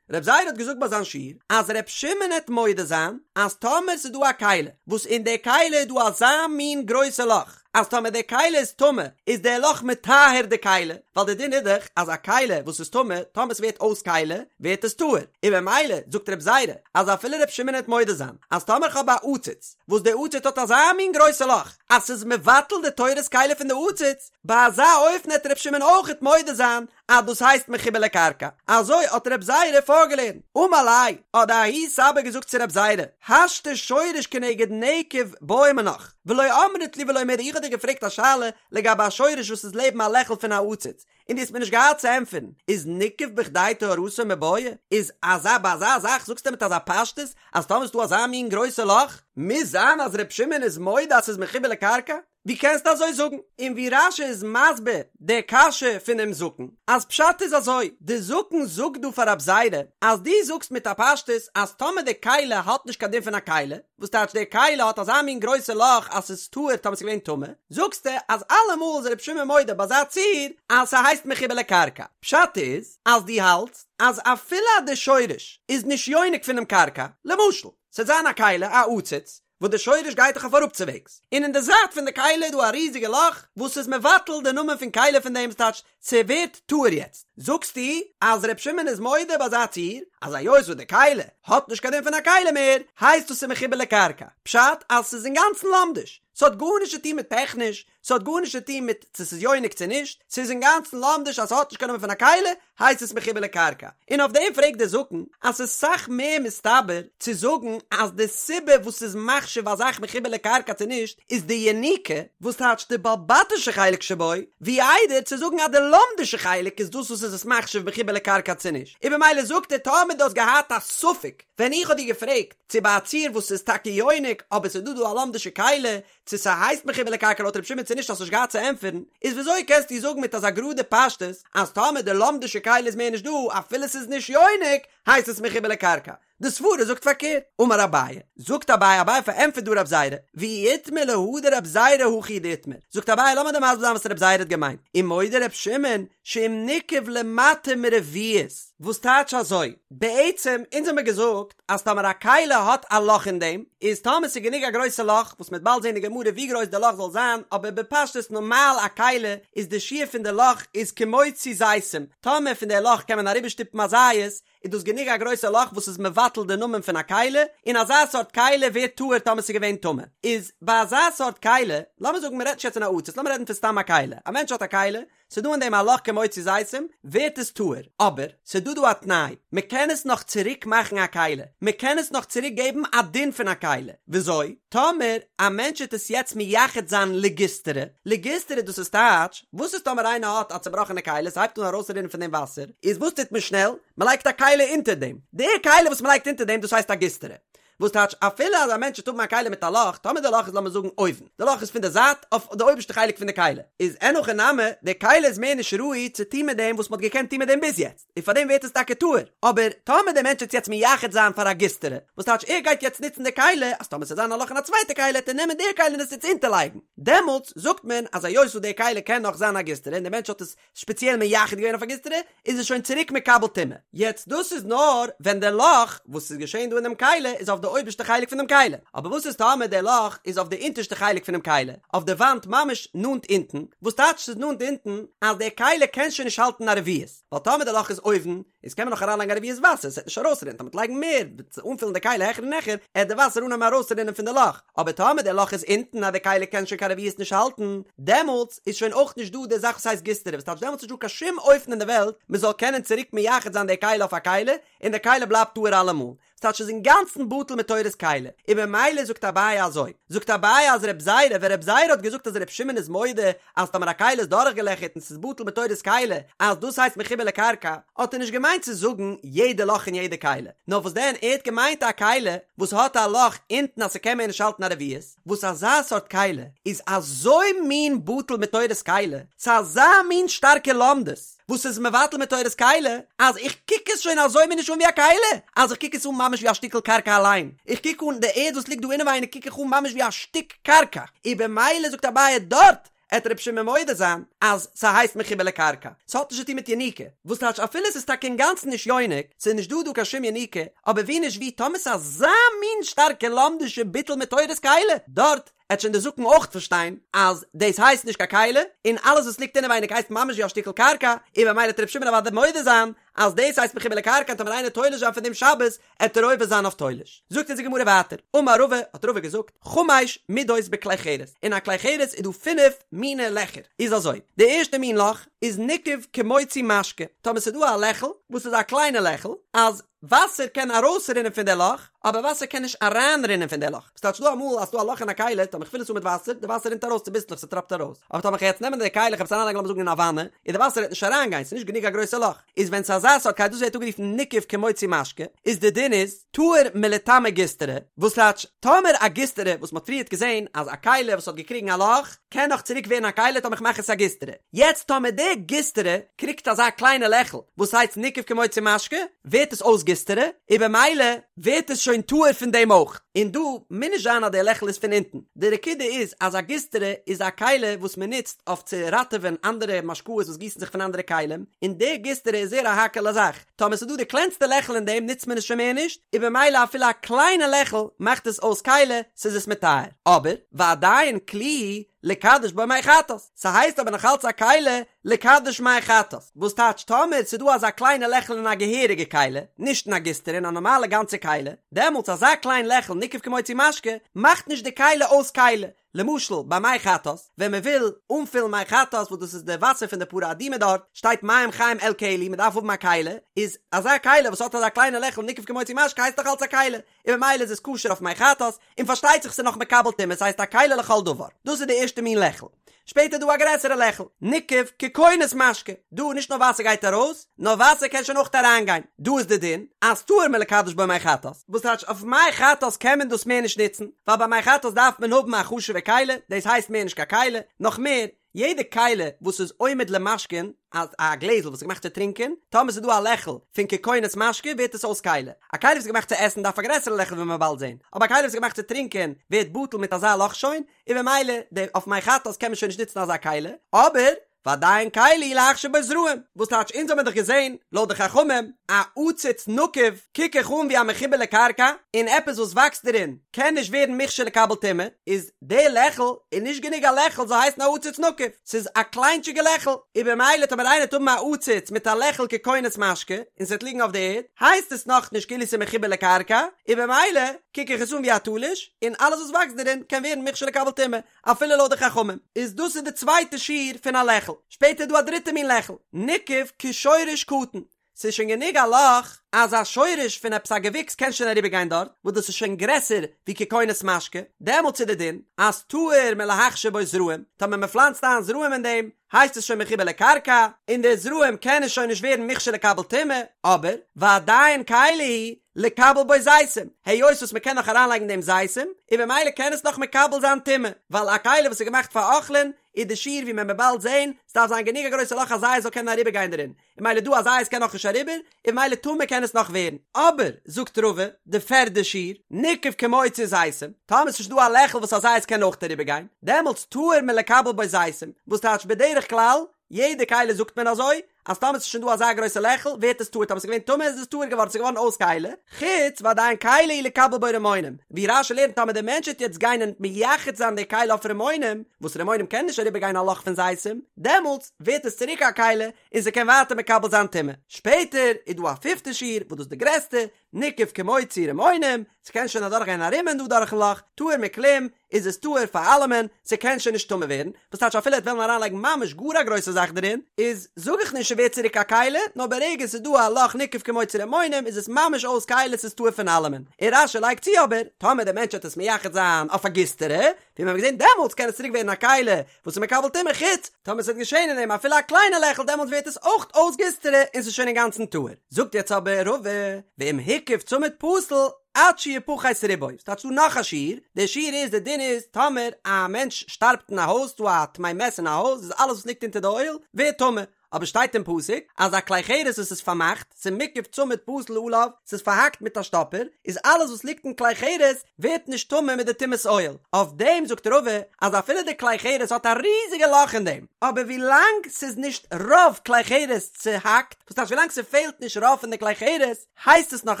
רב זירא האט געזאגט ביי זיין שיעור אז רב שמעון העט מודה זיין אז טאמער ס'איז דא א כלי וואס אין די כלי איז דא אזא מין גרויסע לאך אז טאמער די כלי איז טמא איז די לאך מטהר די כלי, ווייל די דין איז דאך אז א כלי וואס איז טמא טאמער ס'ווערט אויס כלי ווערט עס טהור, און במילא זאגט רב זירא אז אפילו ר' שמעון העט מודה זיין אז טאמער כ'האב א עציץ וואס די עציץ האט אזא מין גרויסע לאך אז ס'איז מבטל די תורת כלי פון די עציץ, ביי אזא אופן העט ר' שמעון אויכעט מודה זיין אז דאס הייסט מחובר לקרקע, אזוי האט רב זירא פארגעלערנט. אמר ליה, האט די ההוא סבא געזאגט צו רב זירא, השתא שורש כנגד נקב בעי מינך, ולא אמרת לי ולא מידי, איך האב דיר געפרעגט א שאלה לגבי א שורש וואס איז לעבן א לעכל פון א עציץ, און דו האסט מיר נישט געהאט צו ענטפערן, איז ניקב בכדי טהרתו מיבעיא? איז אזא ביי אזא זאך זאגסטו מיט אזא פשטות אז טאמער איז דא אזא מין גרויסע לאך, מוז זיין אז ר' שמעון איז מודה אז ס'איז מחובר לקרקע? ווי קענסטו אזוי זאגן? און ווי רש"י איז מסביר די קשיא פונעם זקן, אז פשט איז אזוי, די זקן זאגט דא פאר רב זירא, אז דו זאגסט מיט א פשטות אז טאמער די כלי האט נישט קיין דין פון א כלי, וואס טייטש די כלי האט אזא מין גרויסע לאך אז ס'איז טהור טאמער ס'איז געווען טמא, זאגסטו אז אלעמאל איז רבי שמעון מודה ביי אזא ציור אז ס'הייסט מחובר לקרקע, פשט איז אז דו האלטסט אז אפילו אז די שורש איז נישט יונק פונעם קרקע, למשל, ס'וועט זיין א כלי, א עציץ, וואס די שורש גייט דאך אויף אראפצווועגס, און אין די זייט פון די כלי איז דא א ריזיגע לאך וואס איז מבטל די נאמען פון כלי פון דעם ס'טייטש ס'ווערט טהור יעצט זאגסטו אז ר' שמעון איז מודה ביי אזא ציור אז היות וואס די כלי האט נישט קיין דין פון א כלי מער הייסט עס ס'איז מחובר לקרקע פשט אז ס'איז אינגאנצן לומדיש ס'האט גארנישט צו טון מיט טעכניש ס'האט גארנישט צו טון מיט צו ס'איז יונק צו נישט, ס'איז אינגאנצן לומדיש אז ס'האט נישט קיין נאמען פון א כלי, הייסט עס מחובר לקרקע. און אויף דעם פרעגט דער זקן אז ס'איז סאך מער מסתבר צו זאגן אז די סיבה וואס ס'איז מחשיב א זאך מחובר לקרקע צו נישט איז די יניקה, וואס טייטש די בעל בתישע חלק שבו, ווי איידער צו זאגן אז די לומדישע חלק איז דאס וואס איז עס מחשיב מחובר לקרקע צו נישט. און במילא זאגט ער טאמער דו האסט געהאט א ספק ווען איך האב דיר געפרעגט צו ביי א ציור וואס איז טאקע יונק אבער ס'איז דא דא א לומדישע כלי צו ס'הייסט מחובר לקרקע לויט ר' שמעון צו נישט האסט נישט געהאט צו ענטפערן, איז וויאזוי קענסטו זאגן מיט אזא גראדע פשטות אז טאמער די לומדישע כלי איז מער נישט דא אפילו ס'איז נישט יונק הייסט עס מחובר לקרקע? די סברא זאגט פארקערט. אמר אביי, זאגט אביי, אביי פארענטפערט דא רב זירא, ואי איתמר להא דרב זירא הכי דאיתמר, זאגט אביי לאמיר דיר מסביר זיין וואס רב זירא האט געמיינט, ומודה ר' שמעון שאם ניקב למטה מרביעית, וואס טייטש אזוי? בעצם אונז האמיר געזאגט אז טאמער א כלי האט א לאך אין דעם, איז טאמער ס'איז גענוג א גרויסע לאך, וואס מ'וועט באלד זען אין גמרא ווי גרויס די לאך זאל זיין, אבער בפשטות נארמאל א כלי איז די שיעור פון די לאך איז כמוציא זיתים, טאמער פון די לאך קען מען אריבערשטופן א זית, איז דאס גענוג א גרויסע לאך וואס איז מבטל די נאמען פון א כלי, און אזא סארט כלי ווערט טהור טאמער ס'איז געווען טמא. איז ביי אזא סארט כלי, לאמיר זאגן מ'רעדט נישט יעצט פון א עציץ, לאמיר רעדן פון סתם א כלי, א מענטש האט א כלי, ס'דא אין דעם א לאך כמוציא זיתים, ווערט עס טהור. אבער, ס'דא דא א תנאי, מ'קען עס נאך צוריק מאכן א כלי, מ'קען עס נאך צוריק געבן א דין פון א כלי. וויאזוי? טאמער א מענטש וועט עס יעצט מייחד זיין לגיסטרא, לגיסטרא דאס איז טייטש, וואס איז טאמער איינער האט א צובראכענע כלי, ס'הייבט אן ארויסרינען פון דעם וואסער, איז וואס טוט מען שנעל? מ'לייגט א כלי אונטער דעם. די כלי וואס מ'לייגט אונטער דעם דאס הייסט א גיסטרא. וואס טייטש אפילו אז א מענטש וועט האבן א כלי מיט א לאך, טאמער די לאך איז לאמיר זאגן אויבן, די לאך איז פון די זייט אויף די אויבערשטע חלק פון די כלי, איז אין הכי נמי, די כלי איז מער נישט ראוי צו טון מיט דעם וואס מ'האט געקענט טון מיט דעם ביז יעצט, און פארדעם ווערט עס טאקע טהור, אבער טאמער דער מענטש וועט יעצט מייחד זיין פאר א גיסטרא, וואס טייטש ער גייט יעצט נוצן די כלי, אז טאמער ס'וועט זיין א לאך אין א צווייטע כלי וועט ער נעמען די כלי און עס יעצט אונטערלייגן, דעמאלטס זאגט מען אז היות וואס די כלי קען נאך זיין א גיסטרא און דער מענטש האט עס ספעציעל מייחד געווען אויף א גיסטרא, איז עס שוין צוריק מקבל טומאה. יעצט דאס איז נאר ווען די לאך וואס איז געשען דא אין דעם כלי איז אויף די אויבערשטע חלק פון דעם כלי, אבער וואס איז טאמער די לאך איז אויף די אונטערשטע חלק פונעם כלי, אויף די וואנט ממש נאנט אונטן, וואס טייטש ס'איז נאנט אונטן אז די כלי קען שוין נישט האלטן א רביעית, ווייל טאמער די לאך איז אויבן איז קען מען נאך אריינלייגן א רביעית וואסער, ס'עט נישט ארויסרינען, טאמער מ'עט לייגן מער, וועט אנפילן די כלי העכער און העכער, עט די וואסער אנהייבן ארויסרינען פון די לאך, אבער טאמער די לאך איז אונטן אז די כלי קען שוין קיין רביעית נישט האלטן, דעמאלטס איז שוין אויך נישט דא די זאך וואס הייסט גיסטרא, וואס טייטש דעמאלטס איז נישט דא קיין שום אופן אין די וועלט מען זאל קענען צוריק מייחד זיין די כלי אויף א כלי, און די כלי בלייבט טהור אלעמאל. ס'טייטש ס'איז אינגאנצן בטל מתורת כלי, און במילא זאגט אביי אזוי, זאגט אביי אז רב זירא, ווען רב זירא האט געזאגט אז ר' שמעון איז מודה אז טאמער א כלי איז דורכגעלעכערט און ס'איז בטל מתורת כלי אז דאס הייסט מחובר לקרקע, האט ער נישט געמיינט צו זאגן יעדע לאך אין יעדע כלי, נאר וואס דען ער האט געמיינט א כלי וואס האט א לאך אונטן אז ס'קען מער נישט האלטן א רביעית, וואס אזא סארט כלי איז אזוי מין בטל מתורת כלי, ס'איז אזא מין שטארקע לומדות. וואס איז מבטל מתורת כלי, אז איך קוק עס שוין אזוי מיר נישט אן ווי א כלי, אז איך קוק עס אן ממש ווי א שטיקל קרקע אליין, איך קוק אן די ערד וואס ליגט דא אינעווייניג קוק איך אן ממש ווי א שטיק קרקע, און במילא זאגט אביי דארט. עט ר' שמעון מודה זיין אז ס'הייסט מחובר לקרקע, ס'האט נישט צוטון מיט יניקה, וואס טייטש אפילו ס'איז טאקע אינגאנצן נישט יונק, ס'איז נישט דא דא קיין שום יניקה, אבער ווי נישט ווי טאמער ס'איז אזא מין שטארקע לומדישע ביטול מתורת כלי, דארט עט שוין די זקן אויך פארשטיין אז דאס הייסט נישט קיין כלי, און אלעס וואס ליגט אינעווייניג הייסט ממש ווי א שטיקל קרקע, און במילא עט ר' שמעון אוודאי מודה זיין אז דאס הייסט מחובר לקרקע און טאמער איינער תולש זיין פון דעם שבת עט ער עובר זיין אויף תולש. זאגט אונז די גמרא ווייטער, אמר רבא, האט רבא געזאגט, חמש מידות בכלי חרס, אין א כלי חרס איז דא פינף מיני לעכער, איז אזוי, די ערשטע מין לאך איז ניקב כמוציא משקה, טאמער ס'איז דא א לעכל וואס איז א קליינע לעכל, אז וואסער קען ארויסרינען פון די לאך, אבער וואסער קען נישט אריינרינען פון די לאך, ס'טייטש דא אמאל אז ס'דא א לאך אין א כלי, טאמער כ'פיל עס אן מיט וואסער, די וואסער רינט ארויס צוביסלעך ס'טראפט ארויס, אבער טאמער כ'גיי יעצט נעמען די כלי כ'וועל עס אריינלייגן לאמיר זאגן אין א וואנע, און די וואסער וועט נישט אריינגיין, ס'איז נישט גענוג א גרויסע לאך, איז ווען ס'איז אזא סארט כלי דאס ווערט אנגערופן ניקב כמוציא משקה, איז די דין איז, טהור מלטמא גיסטרא, וואס טייטש, טאמער א גיסטרא וואס מ'האט פריערט געזען אז א כלי וואס האט געקריגן א לאך, קען נאך צוריק ווערן א כלי טאמער כ'מאך עס א גיסטרא, יעצט טאמער די גיסטרא קריגט אזא קליינע לעכל וואס הייסט ניקב כמוציא משקה, ווערט עס אויס גיסטרא, און במילא ווערט עס שוין טהור פון דעם אויך, און דא מוז נישט זיין אז די לעכל איז פון אונטן, די נקודה איז אז א גיסטרא איז א כלי וואס מען נוצט אויף צו ראטעווען אנדערע משקאות וואס גיסן זיך פון אנדערע כלים, און די גיסטרא איז זייער א האקעלע זאך, טאמער ס'איז דא די קלענסטע לעכל אין דעם נוצט מען עס שוין מער נישט, און במילא אפילו א קליינע לעכל מאכט עס אויס כלי, ס'איז עס מטהר. אבער, ועדיין כלי לקדש בו מי חטאת, ס'הייסט אבער נאך אלץ א כלי לקדש מי חטאת, וואס טייטש טאמער ס'איז דא אזא קליינע לעכל אין א געהעריגע כלי, נישט אין א גיסטרא אין א נארמאלע גאנצע כלי, דעמאלטס אזא קליין לעכל ניקב כמוציא משקה, מאכט נישט די כלי אויס כלי, למשל ביי מי חטאת, ווען מען וויל אנפילן מי חטאת וואס דאס איז די וואסער פון די פרה אדומה דארט, שטייט מים חיים אל כלי, מען דארף האבן א כלי, איז אזא כלי וואס האט אזא קליינע לעכל ניקב כמוציא משקה הייסט דאך אלץ א כלי, און ממילא איז עס כשר אויף מי חטאת, און פארשטייט זיך ס'איז נאך מקבל טומאה ס'הייסט א כלי לכל דבר, דאס איז די ערשטע מין לעכל. שפעטער איז דא א גרעסערע לעכל, ניקב ככונס משקה, דא נישט נאר וואסער גייט ארויס, נאר וואסער קען שוין אויך אריינגיין, דא איז די דין אז טהור מלקדש בו מי חטאת, וואס טייטש אויף מי חטאת קען מען דאס מער נישט נוצן, ווייל ביי מי חטאת דארף מען האבן א חשוב'ע כלי, דאס הייסט מער נישט קיין כלי, נאך מער, יעדע כלי וואס איז עומד למשקין, אז א גלעזל וואס איז געמאכט צו טרינקען, טאמער ס'איז דא א לעכל פון ככונס משקה ווערט עס אויס כלי, א כלי וואס איז געמאכט צו עסן דארף א גרעסערע לעכל ווי מ'וועט באלד זען, אבער א כלי וואס איז געמאכט צו טרינקען ווערט בטל מיט אזא לאך שוין, און במילא די אויף מי חטאת קען מען שוין נישט נוצן אזא כלי, אבער ועדיין כלי להכשיר בו זרעים, וואס טייטש אונז האמיר דאך געזען לויט די חכמים א עציץ נקוב קוק איך אן ווי א מחובר לקרקע און עפעס וואס וואקסט דערין קען נישט ווערן מוכשר לקבל טומאה, איז די לעכל איז נישט גענוג א לעכל זאל הייסן א עציץ נקוב, ס'איז א קליינטשיגע לעכל, און במילא טאמער איינער וועט האבן א עציץ מיט א לעכל ככונס משקה און ס'וועט ליגן אויף די ערד הייסט עס נאכנישט כאילו ס'איז מחובר לקרקע, און במילא קוק איך עס אן ווי א תלוש און אלעס וואס וואקסט דערין קען ווערן מוכשר לקבל טומאה. אפילו לויט די חכמים איז דאס איז די צווייטע שיעור פון א לעכל, שפעטער איז דא א דריטע מין לעכל, ניקב כשורש קטן, ס'איז שוין גענוג א לאך אז א שורש פון עפעס א געוויקס קען שוין אריבער גיין דארט, וואס דאס איז שוין גרעסער ווי ככונס משקה, דעמאלטס איז די דין אז טהור מלהכשיר בו זרעים, טאמער מען פלאנצט איין זרעים אין דעם, הייסט עס שוין מחובר לקרקע, און די זרעים קענען שוין נישט ווערן מוכשר לקבל טומאה, אבער ועדיין כלי הוא לקבל בו זיתים, היות וואס מ'קען נאך אריינלייגן דעם זיתים, און במילא קען עס נאך מקבל זיין טומאה, ווייל א כלי וואס איז געמאכט פאר אוכלין, איז די שיעור ווי מען וועט באלד זען, ס'דארף זיין גענוג א גרויסע לאך אז זית זאל קענען אריבערגיין דערין, און ממילא דא א זית קען נאך נישט אריבער, און ממילא טמא קען עס נאך ווערן. אבער, זאגט רבא, די פערדע שיעור, ניקב כמוציא זיתים, טאמער ס'איז שוין דא א לעכל וואס א זית קען אויך אריבערגיין, דעמאלטס טהור מלקבל בו זיתים, וואס טייטש בדרך כלל, יעדע כלי זאגט מען אזוי, אז טאמער ס'איז שוין דא אזא גרויסע לעכל ווערט עס טהור, טאמער ס'איז געווען טמא איז עס טהור געווארן, ס'איז געווארן אויס כלי, חוץ ועדיין כלי הוא לקבל בו רימונים, ווי רש"י לערנט טאמער דער מענטש וועט יעצט גיין און מייחד זיין די כלי אויף רימונים, וואס רימונים קען נישט אריבער גיין א לאך פון זיתים, דעמאלטס ווערט עס צוריק א כלי און ס'קען ווייטער מקבל זיין טומאה. שפעטער איז דא א פיפטע שיעור וואס דאס איז די גרעסטע, ניקב כמוציא רימונים, ס'קען שוין אדורך גיין א רימון דא דורכן לאך, טהור מכלום, איז עס טהור פאר אלעמען, ס'קען שוין נישט טמא ווערן, וואס טייטש אפילו ער וועט וועלן אריינלייגן ממש גאר א גרויסע זאך דערין, איז זאג איך נישט ס'ווערט צוריק א כלי, נאר ברגע ס'איז דא א לאך ניקב כמוציא רימונים איז עס ממש אויס כלי ס'איז טהור פון אלעמען, און רש"י לייגט צו אבער, טאמער דער מענטש וועט עס מייחד זיין אויף א גיסטרא, ווי מיר האבן געזען דעמאלטס קען עס צוריק ווערן א כלי וואס איז מקבל טומאה חוץ טאמער ס'וועט געשען אין דעם אפילו א קליינע לעכל דעמאלטס ווערט עס אויך אויס גיסטרא און ס'איז שוין אינגאנצן טהור. זאגט יעצט אבער רבא, ואם הקיף צמיד פסול עד שיפחת רובו, ס'טייטש דא נאך א שיעור, דער שיעור איז די דין איז טאמער א מענטש שטארבט אין א הויז ס'דא א טמא מת אין א הויז איז אלעס וואס ליגט אונטער די אוהל ווערט טמא, אבער שטייט אין פסוק אז א כלי חרס וואס איז פארמאכט, ס'איז מוקף צמיד פתיל עליו, ס'איז פארהאקט מיט א שטאפער, איז אלעס וואס ליגט אין כלי חרס ווערט נישט טמא מיט די טומאת אוהל, אויף דעם זאגט רבא אז אפילו די כלי חרס האט א ריזיגע לאך אין דעם, אבער ווילאנג ס'איז נישט רוב כלי חרס צוהאקט, וואס טייטש ווילאנג ס'פעלט נישט רוב פון די כלי חרס, הייסט עס נאך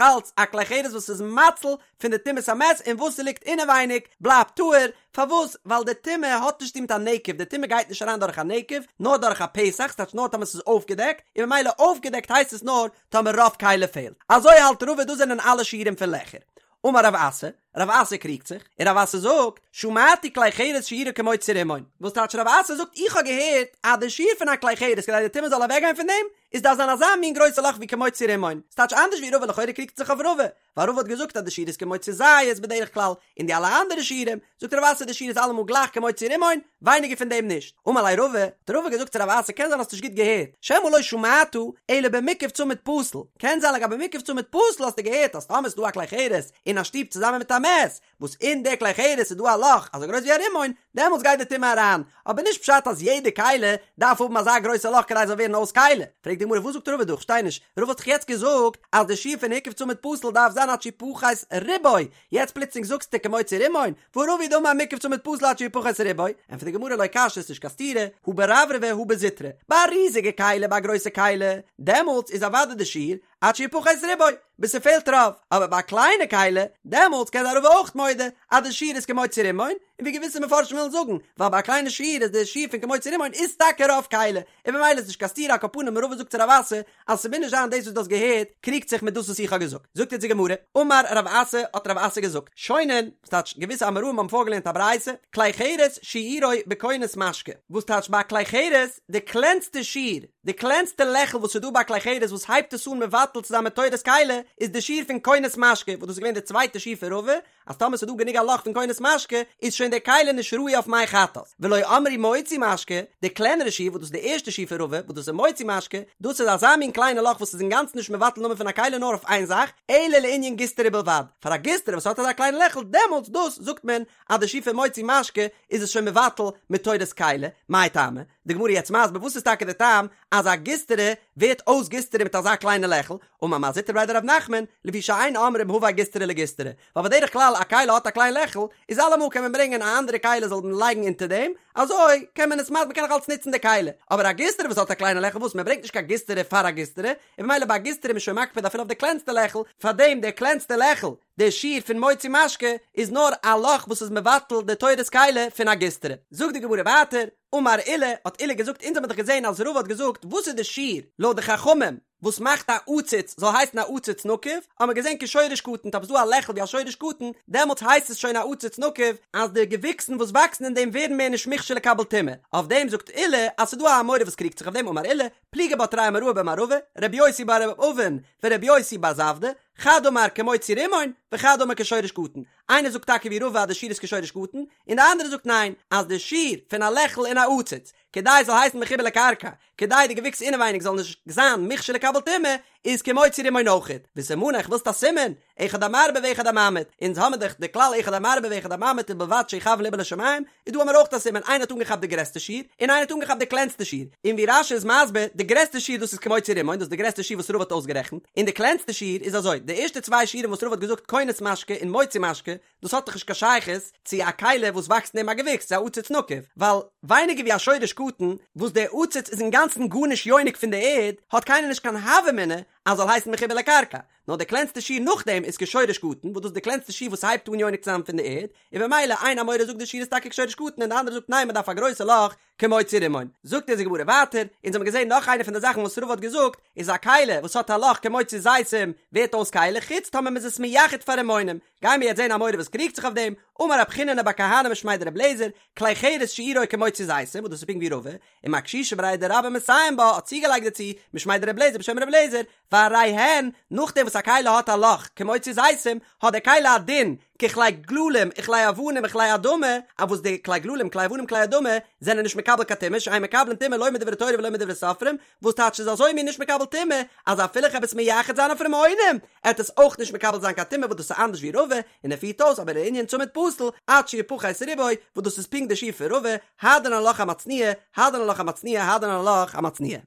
אלץ א כלי חרס וואס איז מציל פון די טומאת המת און וואס ס'ליגט אינעווייניג בלייבט טהור, פארוואס? ווייל די טומאה האט נישט צו טון מיט א נקב, די טומאה גייט נישט אריין דורך א נקב, נאר דורך א פתח, ס'טייטש נאר טאמער ס'איז אויפגעדעקט, און ממילא אויפגעדעקט הייסט עס נאר טאמער רוב כלי פעלט. אזוי האלט רבא דאס זענען אלע שיעורים פון לעכער. אמר רב אסי, רב אסי קריגט זיך, און רב אסי זאגט, שמעתי כלי חרס שיעורו כמוציא רימון, וואס טייטש רב אסי זאגט איך האב געהערט אז די שיעור פון א כלי חרס כדי די טומאה זאל אוועקגיין פון דעם, איז דארף זיין אזא מין גרויסע לאך ווי כמוציא רימון, ס'טייטש אנדערש ווי רבא לכאורה קריגט זיך אויף רבא, ווייל רבא האט געזאגט אז די שיעור איז כמוציא זית בדרך כלל, און די אלע אנדערע שיעורים, זאגט רב אסי די שיעור איז אלעמאל גלייך כמוציא רימון, ווייניגער פון דעם נישט. אמר ליה רבא, האט רבא געזאגט צו רב אסי קען זיין האסט נישט גוט געהערט, שמא לא שמעת אלא במוקף צמיד פתיל, קען זיין לגבי מוקף צמיד פתיל האסטו געהערט אז טאמער איז דא א כלי חרס אין א שטוב צוזאמען מיט א מת, וואס אין די כלי חרס איז דא א לאך אזוי גרויס ווי א רימון, דעמאלטס גייט די טומאה אריין, אבער נישט פשט אז יעדע כלי דארף האבן אזא גרויסע לאך כדי עס זאל ווערן אויס כלי. פרעגט די גמרא וואס זאגט רבא דא? כ'שטיי נישט, רבא האט דאך יעצט געזאגט אז די שיעור פון הוקף צמיד פתיל דארף זיין עד שיפחת רובו, יעצט פלוצלינג זאגסטו כמוציא רימון, והא רבא הוא דאמר מוקף צמיד פתיל עד שיפחת רובו, ענטפערט די גמרא לא קשיא ס'איז נישט קיין סתירה, הא ברברבי הא בזוטרי, ביי א ריזיגע כלי ביי א גרויסע כלי, דעמאלטס איז אוודאי די שיעור עד שיפחת רובו, ביז ס'פעלט רוב, אבער ביי א קליינע כלי, דעמאלטס קען זיין רבא אויך מודה אז די שיעור איז כמוציא רימון, און ווי געוויסע מפרשים ווילן זאגן, ווייל ביי א קליינע שיעור איז די שיעור פון כמוציא רימון איז טאקע רוב כלי, און ממילא איז נישט קיין סתירה על כל פנים רבא זאגט צו רב אסי אז ס'מוז נישט זיין דאס וואס דו האסט געהערט קריגט זיך מיט דאס וואס איך האב געזאגט, זאגט יעצט די גמרא, אמר רב אסי האט רב אסי געזאגט, שונין, וואס טייטש געוויסע אמוראים האבן פארגעלערנט א ברייתא, כלי חרס שיעורו בכונס משקה, וואס טייטש ביי א כלי חרס די קלענסטע שיעור, די קלענסטע לעכל וואס איז דא ביי א כלי חרס וואס הייבט עס אן מבטל צו זיין מתורת כלי איז די שיעור פון כונס משקה וואס דאס איז געווען די צווייטע שיעור פון רבא אז טאמער ס'איז דא גענוג א לאך פון כונס משקה איז שוין די כלי נישט ראוי אויף מי חטאת ולא אמרו מוציא משקה די קלענערע שיעור וואס דאס איז די ערשטע שיעור פון רבא וואס דאס איז מוציא משקה דאס איז אזא מין קליינע לאך וואס איז אינגאנצן נישט מבטל נאמען פון א כלי נאר אויף איין זאך אלא לענין גיסטרא בלבד פאר א גיסטרא וואס האט אזא קליינע לעכל דעמאלטס דאס זאגט מען אז די שיעור פון מוציא משקה איז עס שוין מבטל מתורת כלי מאי טעמא די גמרא יעצט מסביר וואס איז טאקע די טעם אז א גיסטרא ווערט אויס גיסטרא מיט אזא קליינע לעכל, אמר מר זוטרא בריה דרב נחמן, לפי שאין אומרים הבא גיסטרא לגיסטרא, ווייל בדרך כלל א כלי האט א קליין לעכל, איז אלעמאל קען מען ברענגען א אנדערע כלי זאל מען לייגן אונטער דעם, אזוי קען מען עס מ'קען נאך אלץ נוצן די כלי, אבער א גיסטרא וואס האט א קליינע לעכל וואס מען ברענגט נישט קיין גיסטרא פאר א גיסטרא, און ממילא ביי א גיסטרא איז מען שוין מקפיד אפילו אויף די קלענסטע לעכל, פארדעם די קלענסטע לעכל, די שיעור פון מוציא משקה איז נאר א לאך וואס איז מבטל די תורת כלי פון א גיסטרא. זאגט די גמרא ווייטער, אמר עולא, האט עולא געזאגט, אונז האבן דאך געזען אז רבא האט געזאגט וואס איז די שיעור לויט די חכמים וואס מאכט א עציץ זאל הייסן א עציץ נקוב, האבן מיר געזען כשורש קטן, טאמער ס'איז דא א לעכל ווי א שורש קטן, דעמאלטס הייסט עס שוין א עציץ נקוב, אז די געוויקסן וואס וואקסן אין דעם ווערן מער נישט מוכשר לקבל טומאה, אויף דעם זאגט עולא אז ס'איז דא א אמורא וואס קריגט זיך אויף דעם, אמר עולא, פליגי בה תרי אמוראי במערבא, רבי יוסי בר אבין ורבי יוסי בר זבדא, חד אמר כמוציא רימון, וחד אמר כשורש קטן. איינער זאגט טאקע ווי רבא אז די שיעור איז כשורש קטן, און די אנדערע זאגט ניין, אז די שיעור פון א לעכל אין א עציץ, כדי עס זאל הייסן מחובר לקרקע, כדי די געוויקס אינעווייניג זאל נישט זיין מוכשר לקבל טומאה, איז כמוציא רימון אויכעט. וסימניך, ווילסט א סימן? אחד המרבה ואחד הממעיט, אונז האמיר דאך די כלל אחד המרבה ואחד הממעיט ובלבד שיכוון לבו לשמים, איז דא האמיר אויך א סימן, איינער האט אנגעכאפט די גרעסטע שיעור, און איינער האט אנגעכאפט די קלענסטע שיעור, און ווי רש"י איז מסביר, די גרעסטע שיעור דאס איז כמוציא רימון, דאס איז די גרעסטע שיעור וואס רבא האט אויסגערעכנט, און די קלענסטע שיעור איז אזוי, די ערשטע צוויי שיעורים וואס רבא האט געזאגט כונס משקה און מוציא משקה, דאס האט דאך נישט קיין שייכות צו א כלי וואס וואקסט אין אים א געוויקס, צו א עציץ נקוב, ווייל ווייניגער ווי א שורש קטן, וואס דער עציץ איז אינגאנצן גארנישט יונק פון די ערד, האט קיינער נישט קיין הוה אמינא אז זאל הייסן מחובר לקרקע, נאר די קלענסטע שיעור נאכדעם איז כשורש קטן, וואס דאס איז די קלענסטע שיעור וואס הייבט אן יונק צו זיין פון די ערד, און במילא איין אמורא זאגט די שיעור איז טאקע כשורש קטן און די אנדערע זאגט ניין מען דארף א גרויסע לאך כמוציא רימון. זאגט אונז די גמרא ווייטער, אונז האבן געזען נאך איינע פון די זאכן וואס רבא האט געזאגט, איז א כלי וואס האט א לאך כמוציא זיתים ווערט אויס כלי חוץ טאמער מען איז עס מייחד פאר רימונים, גיימיר יעצט זען א אמורא וואס קריגט זיך אויף דעם, אמר רב חיננא בר כהנא משמיה דרבי אליעזר, כלי חרס שיעורו כמוציא זיתים, וואס דאס איז פונקט ווי רבא, ומר קשישא בריה דרבה מסיים בה האט צוגעלייגט דערצו, משמיה דרבי אליעזר בשם רבי אליעזר, והרי הן, נאכדעם וואס א כלי האט א לאך, כמוציא זיתים, האט דער כלי א דין, ככלי גללים וכלי אבנים וכלי אדמה, אויף וואס די כלי גללים כלי אבנים כלי אדמה זענען נישט מקבל קיין טומאה, שאין מקבלין טומאה לא מדברי תורה ולא מדברי סופרים, וואס טייטש איז אזוי מין נישט מקבל טומאה, אז אפילו איך העב עס מייחד זיין אויף רימונים, עט עס אויך נישט מקבל זיין קיין טומאה וואס דאס איז אנדערש ווי רבא, און ער פירט אויס אבער לענין צמיד פתיל, עד שיפחת רובו, וואס דאס איז פונקט די שיעור פון רבא, הדרן עלך המצניע, הדרן עלך המצניע, הדרן עלך המצניע.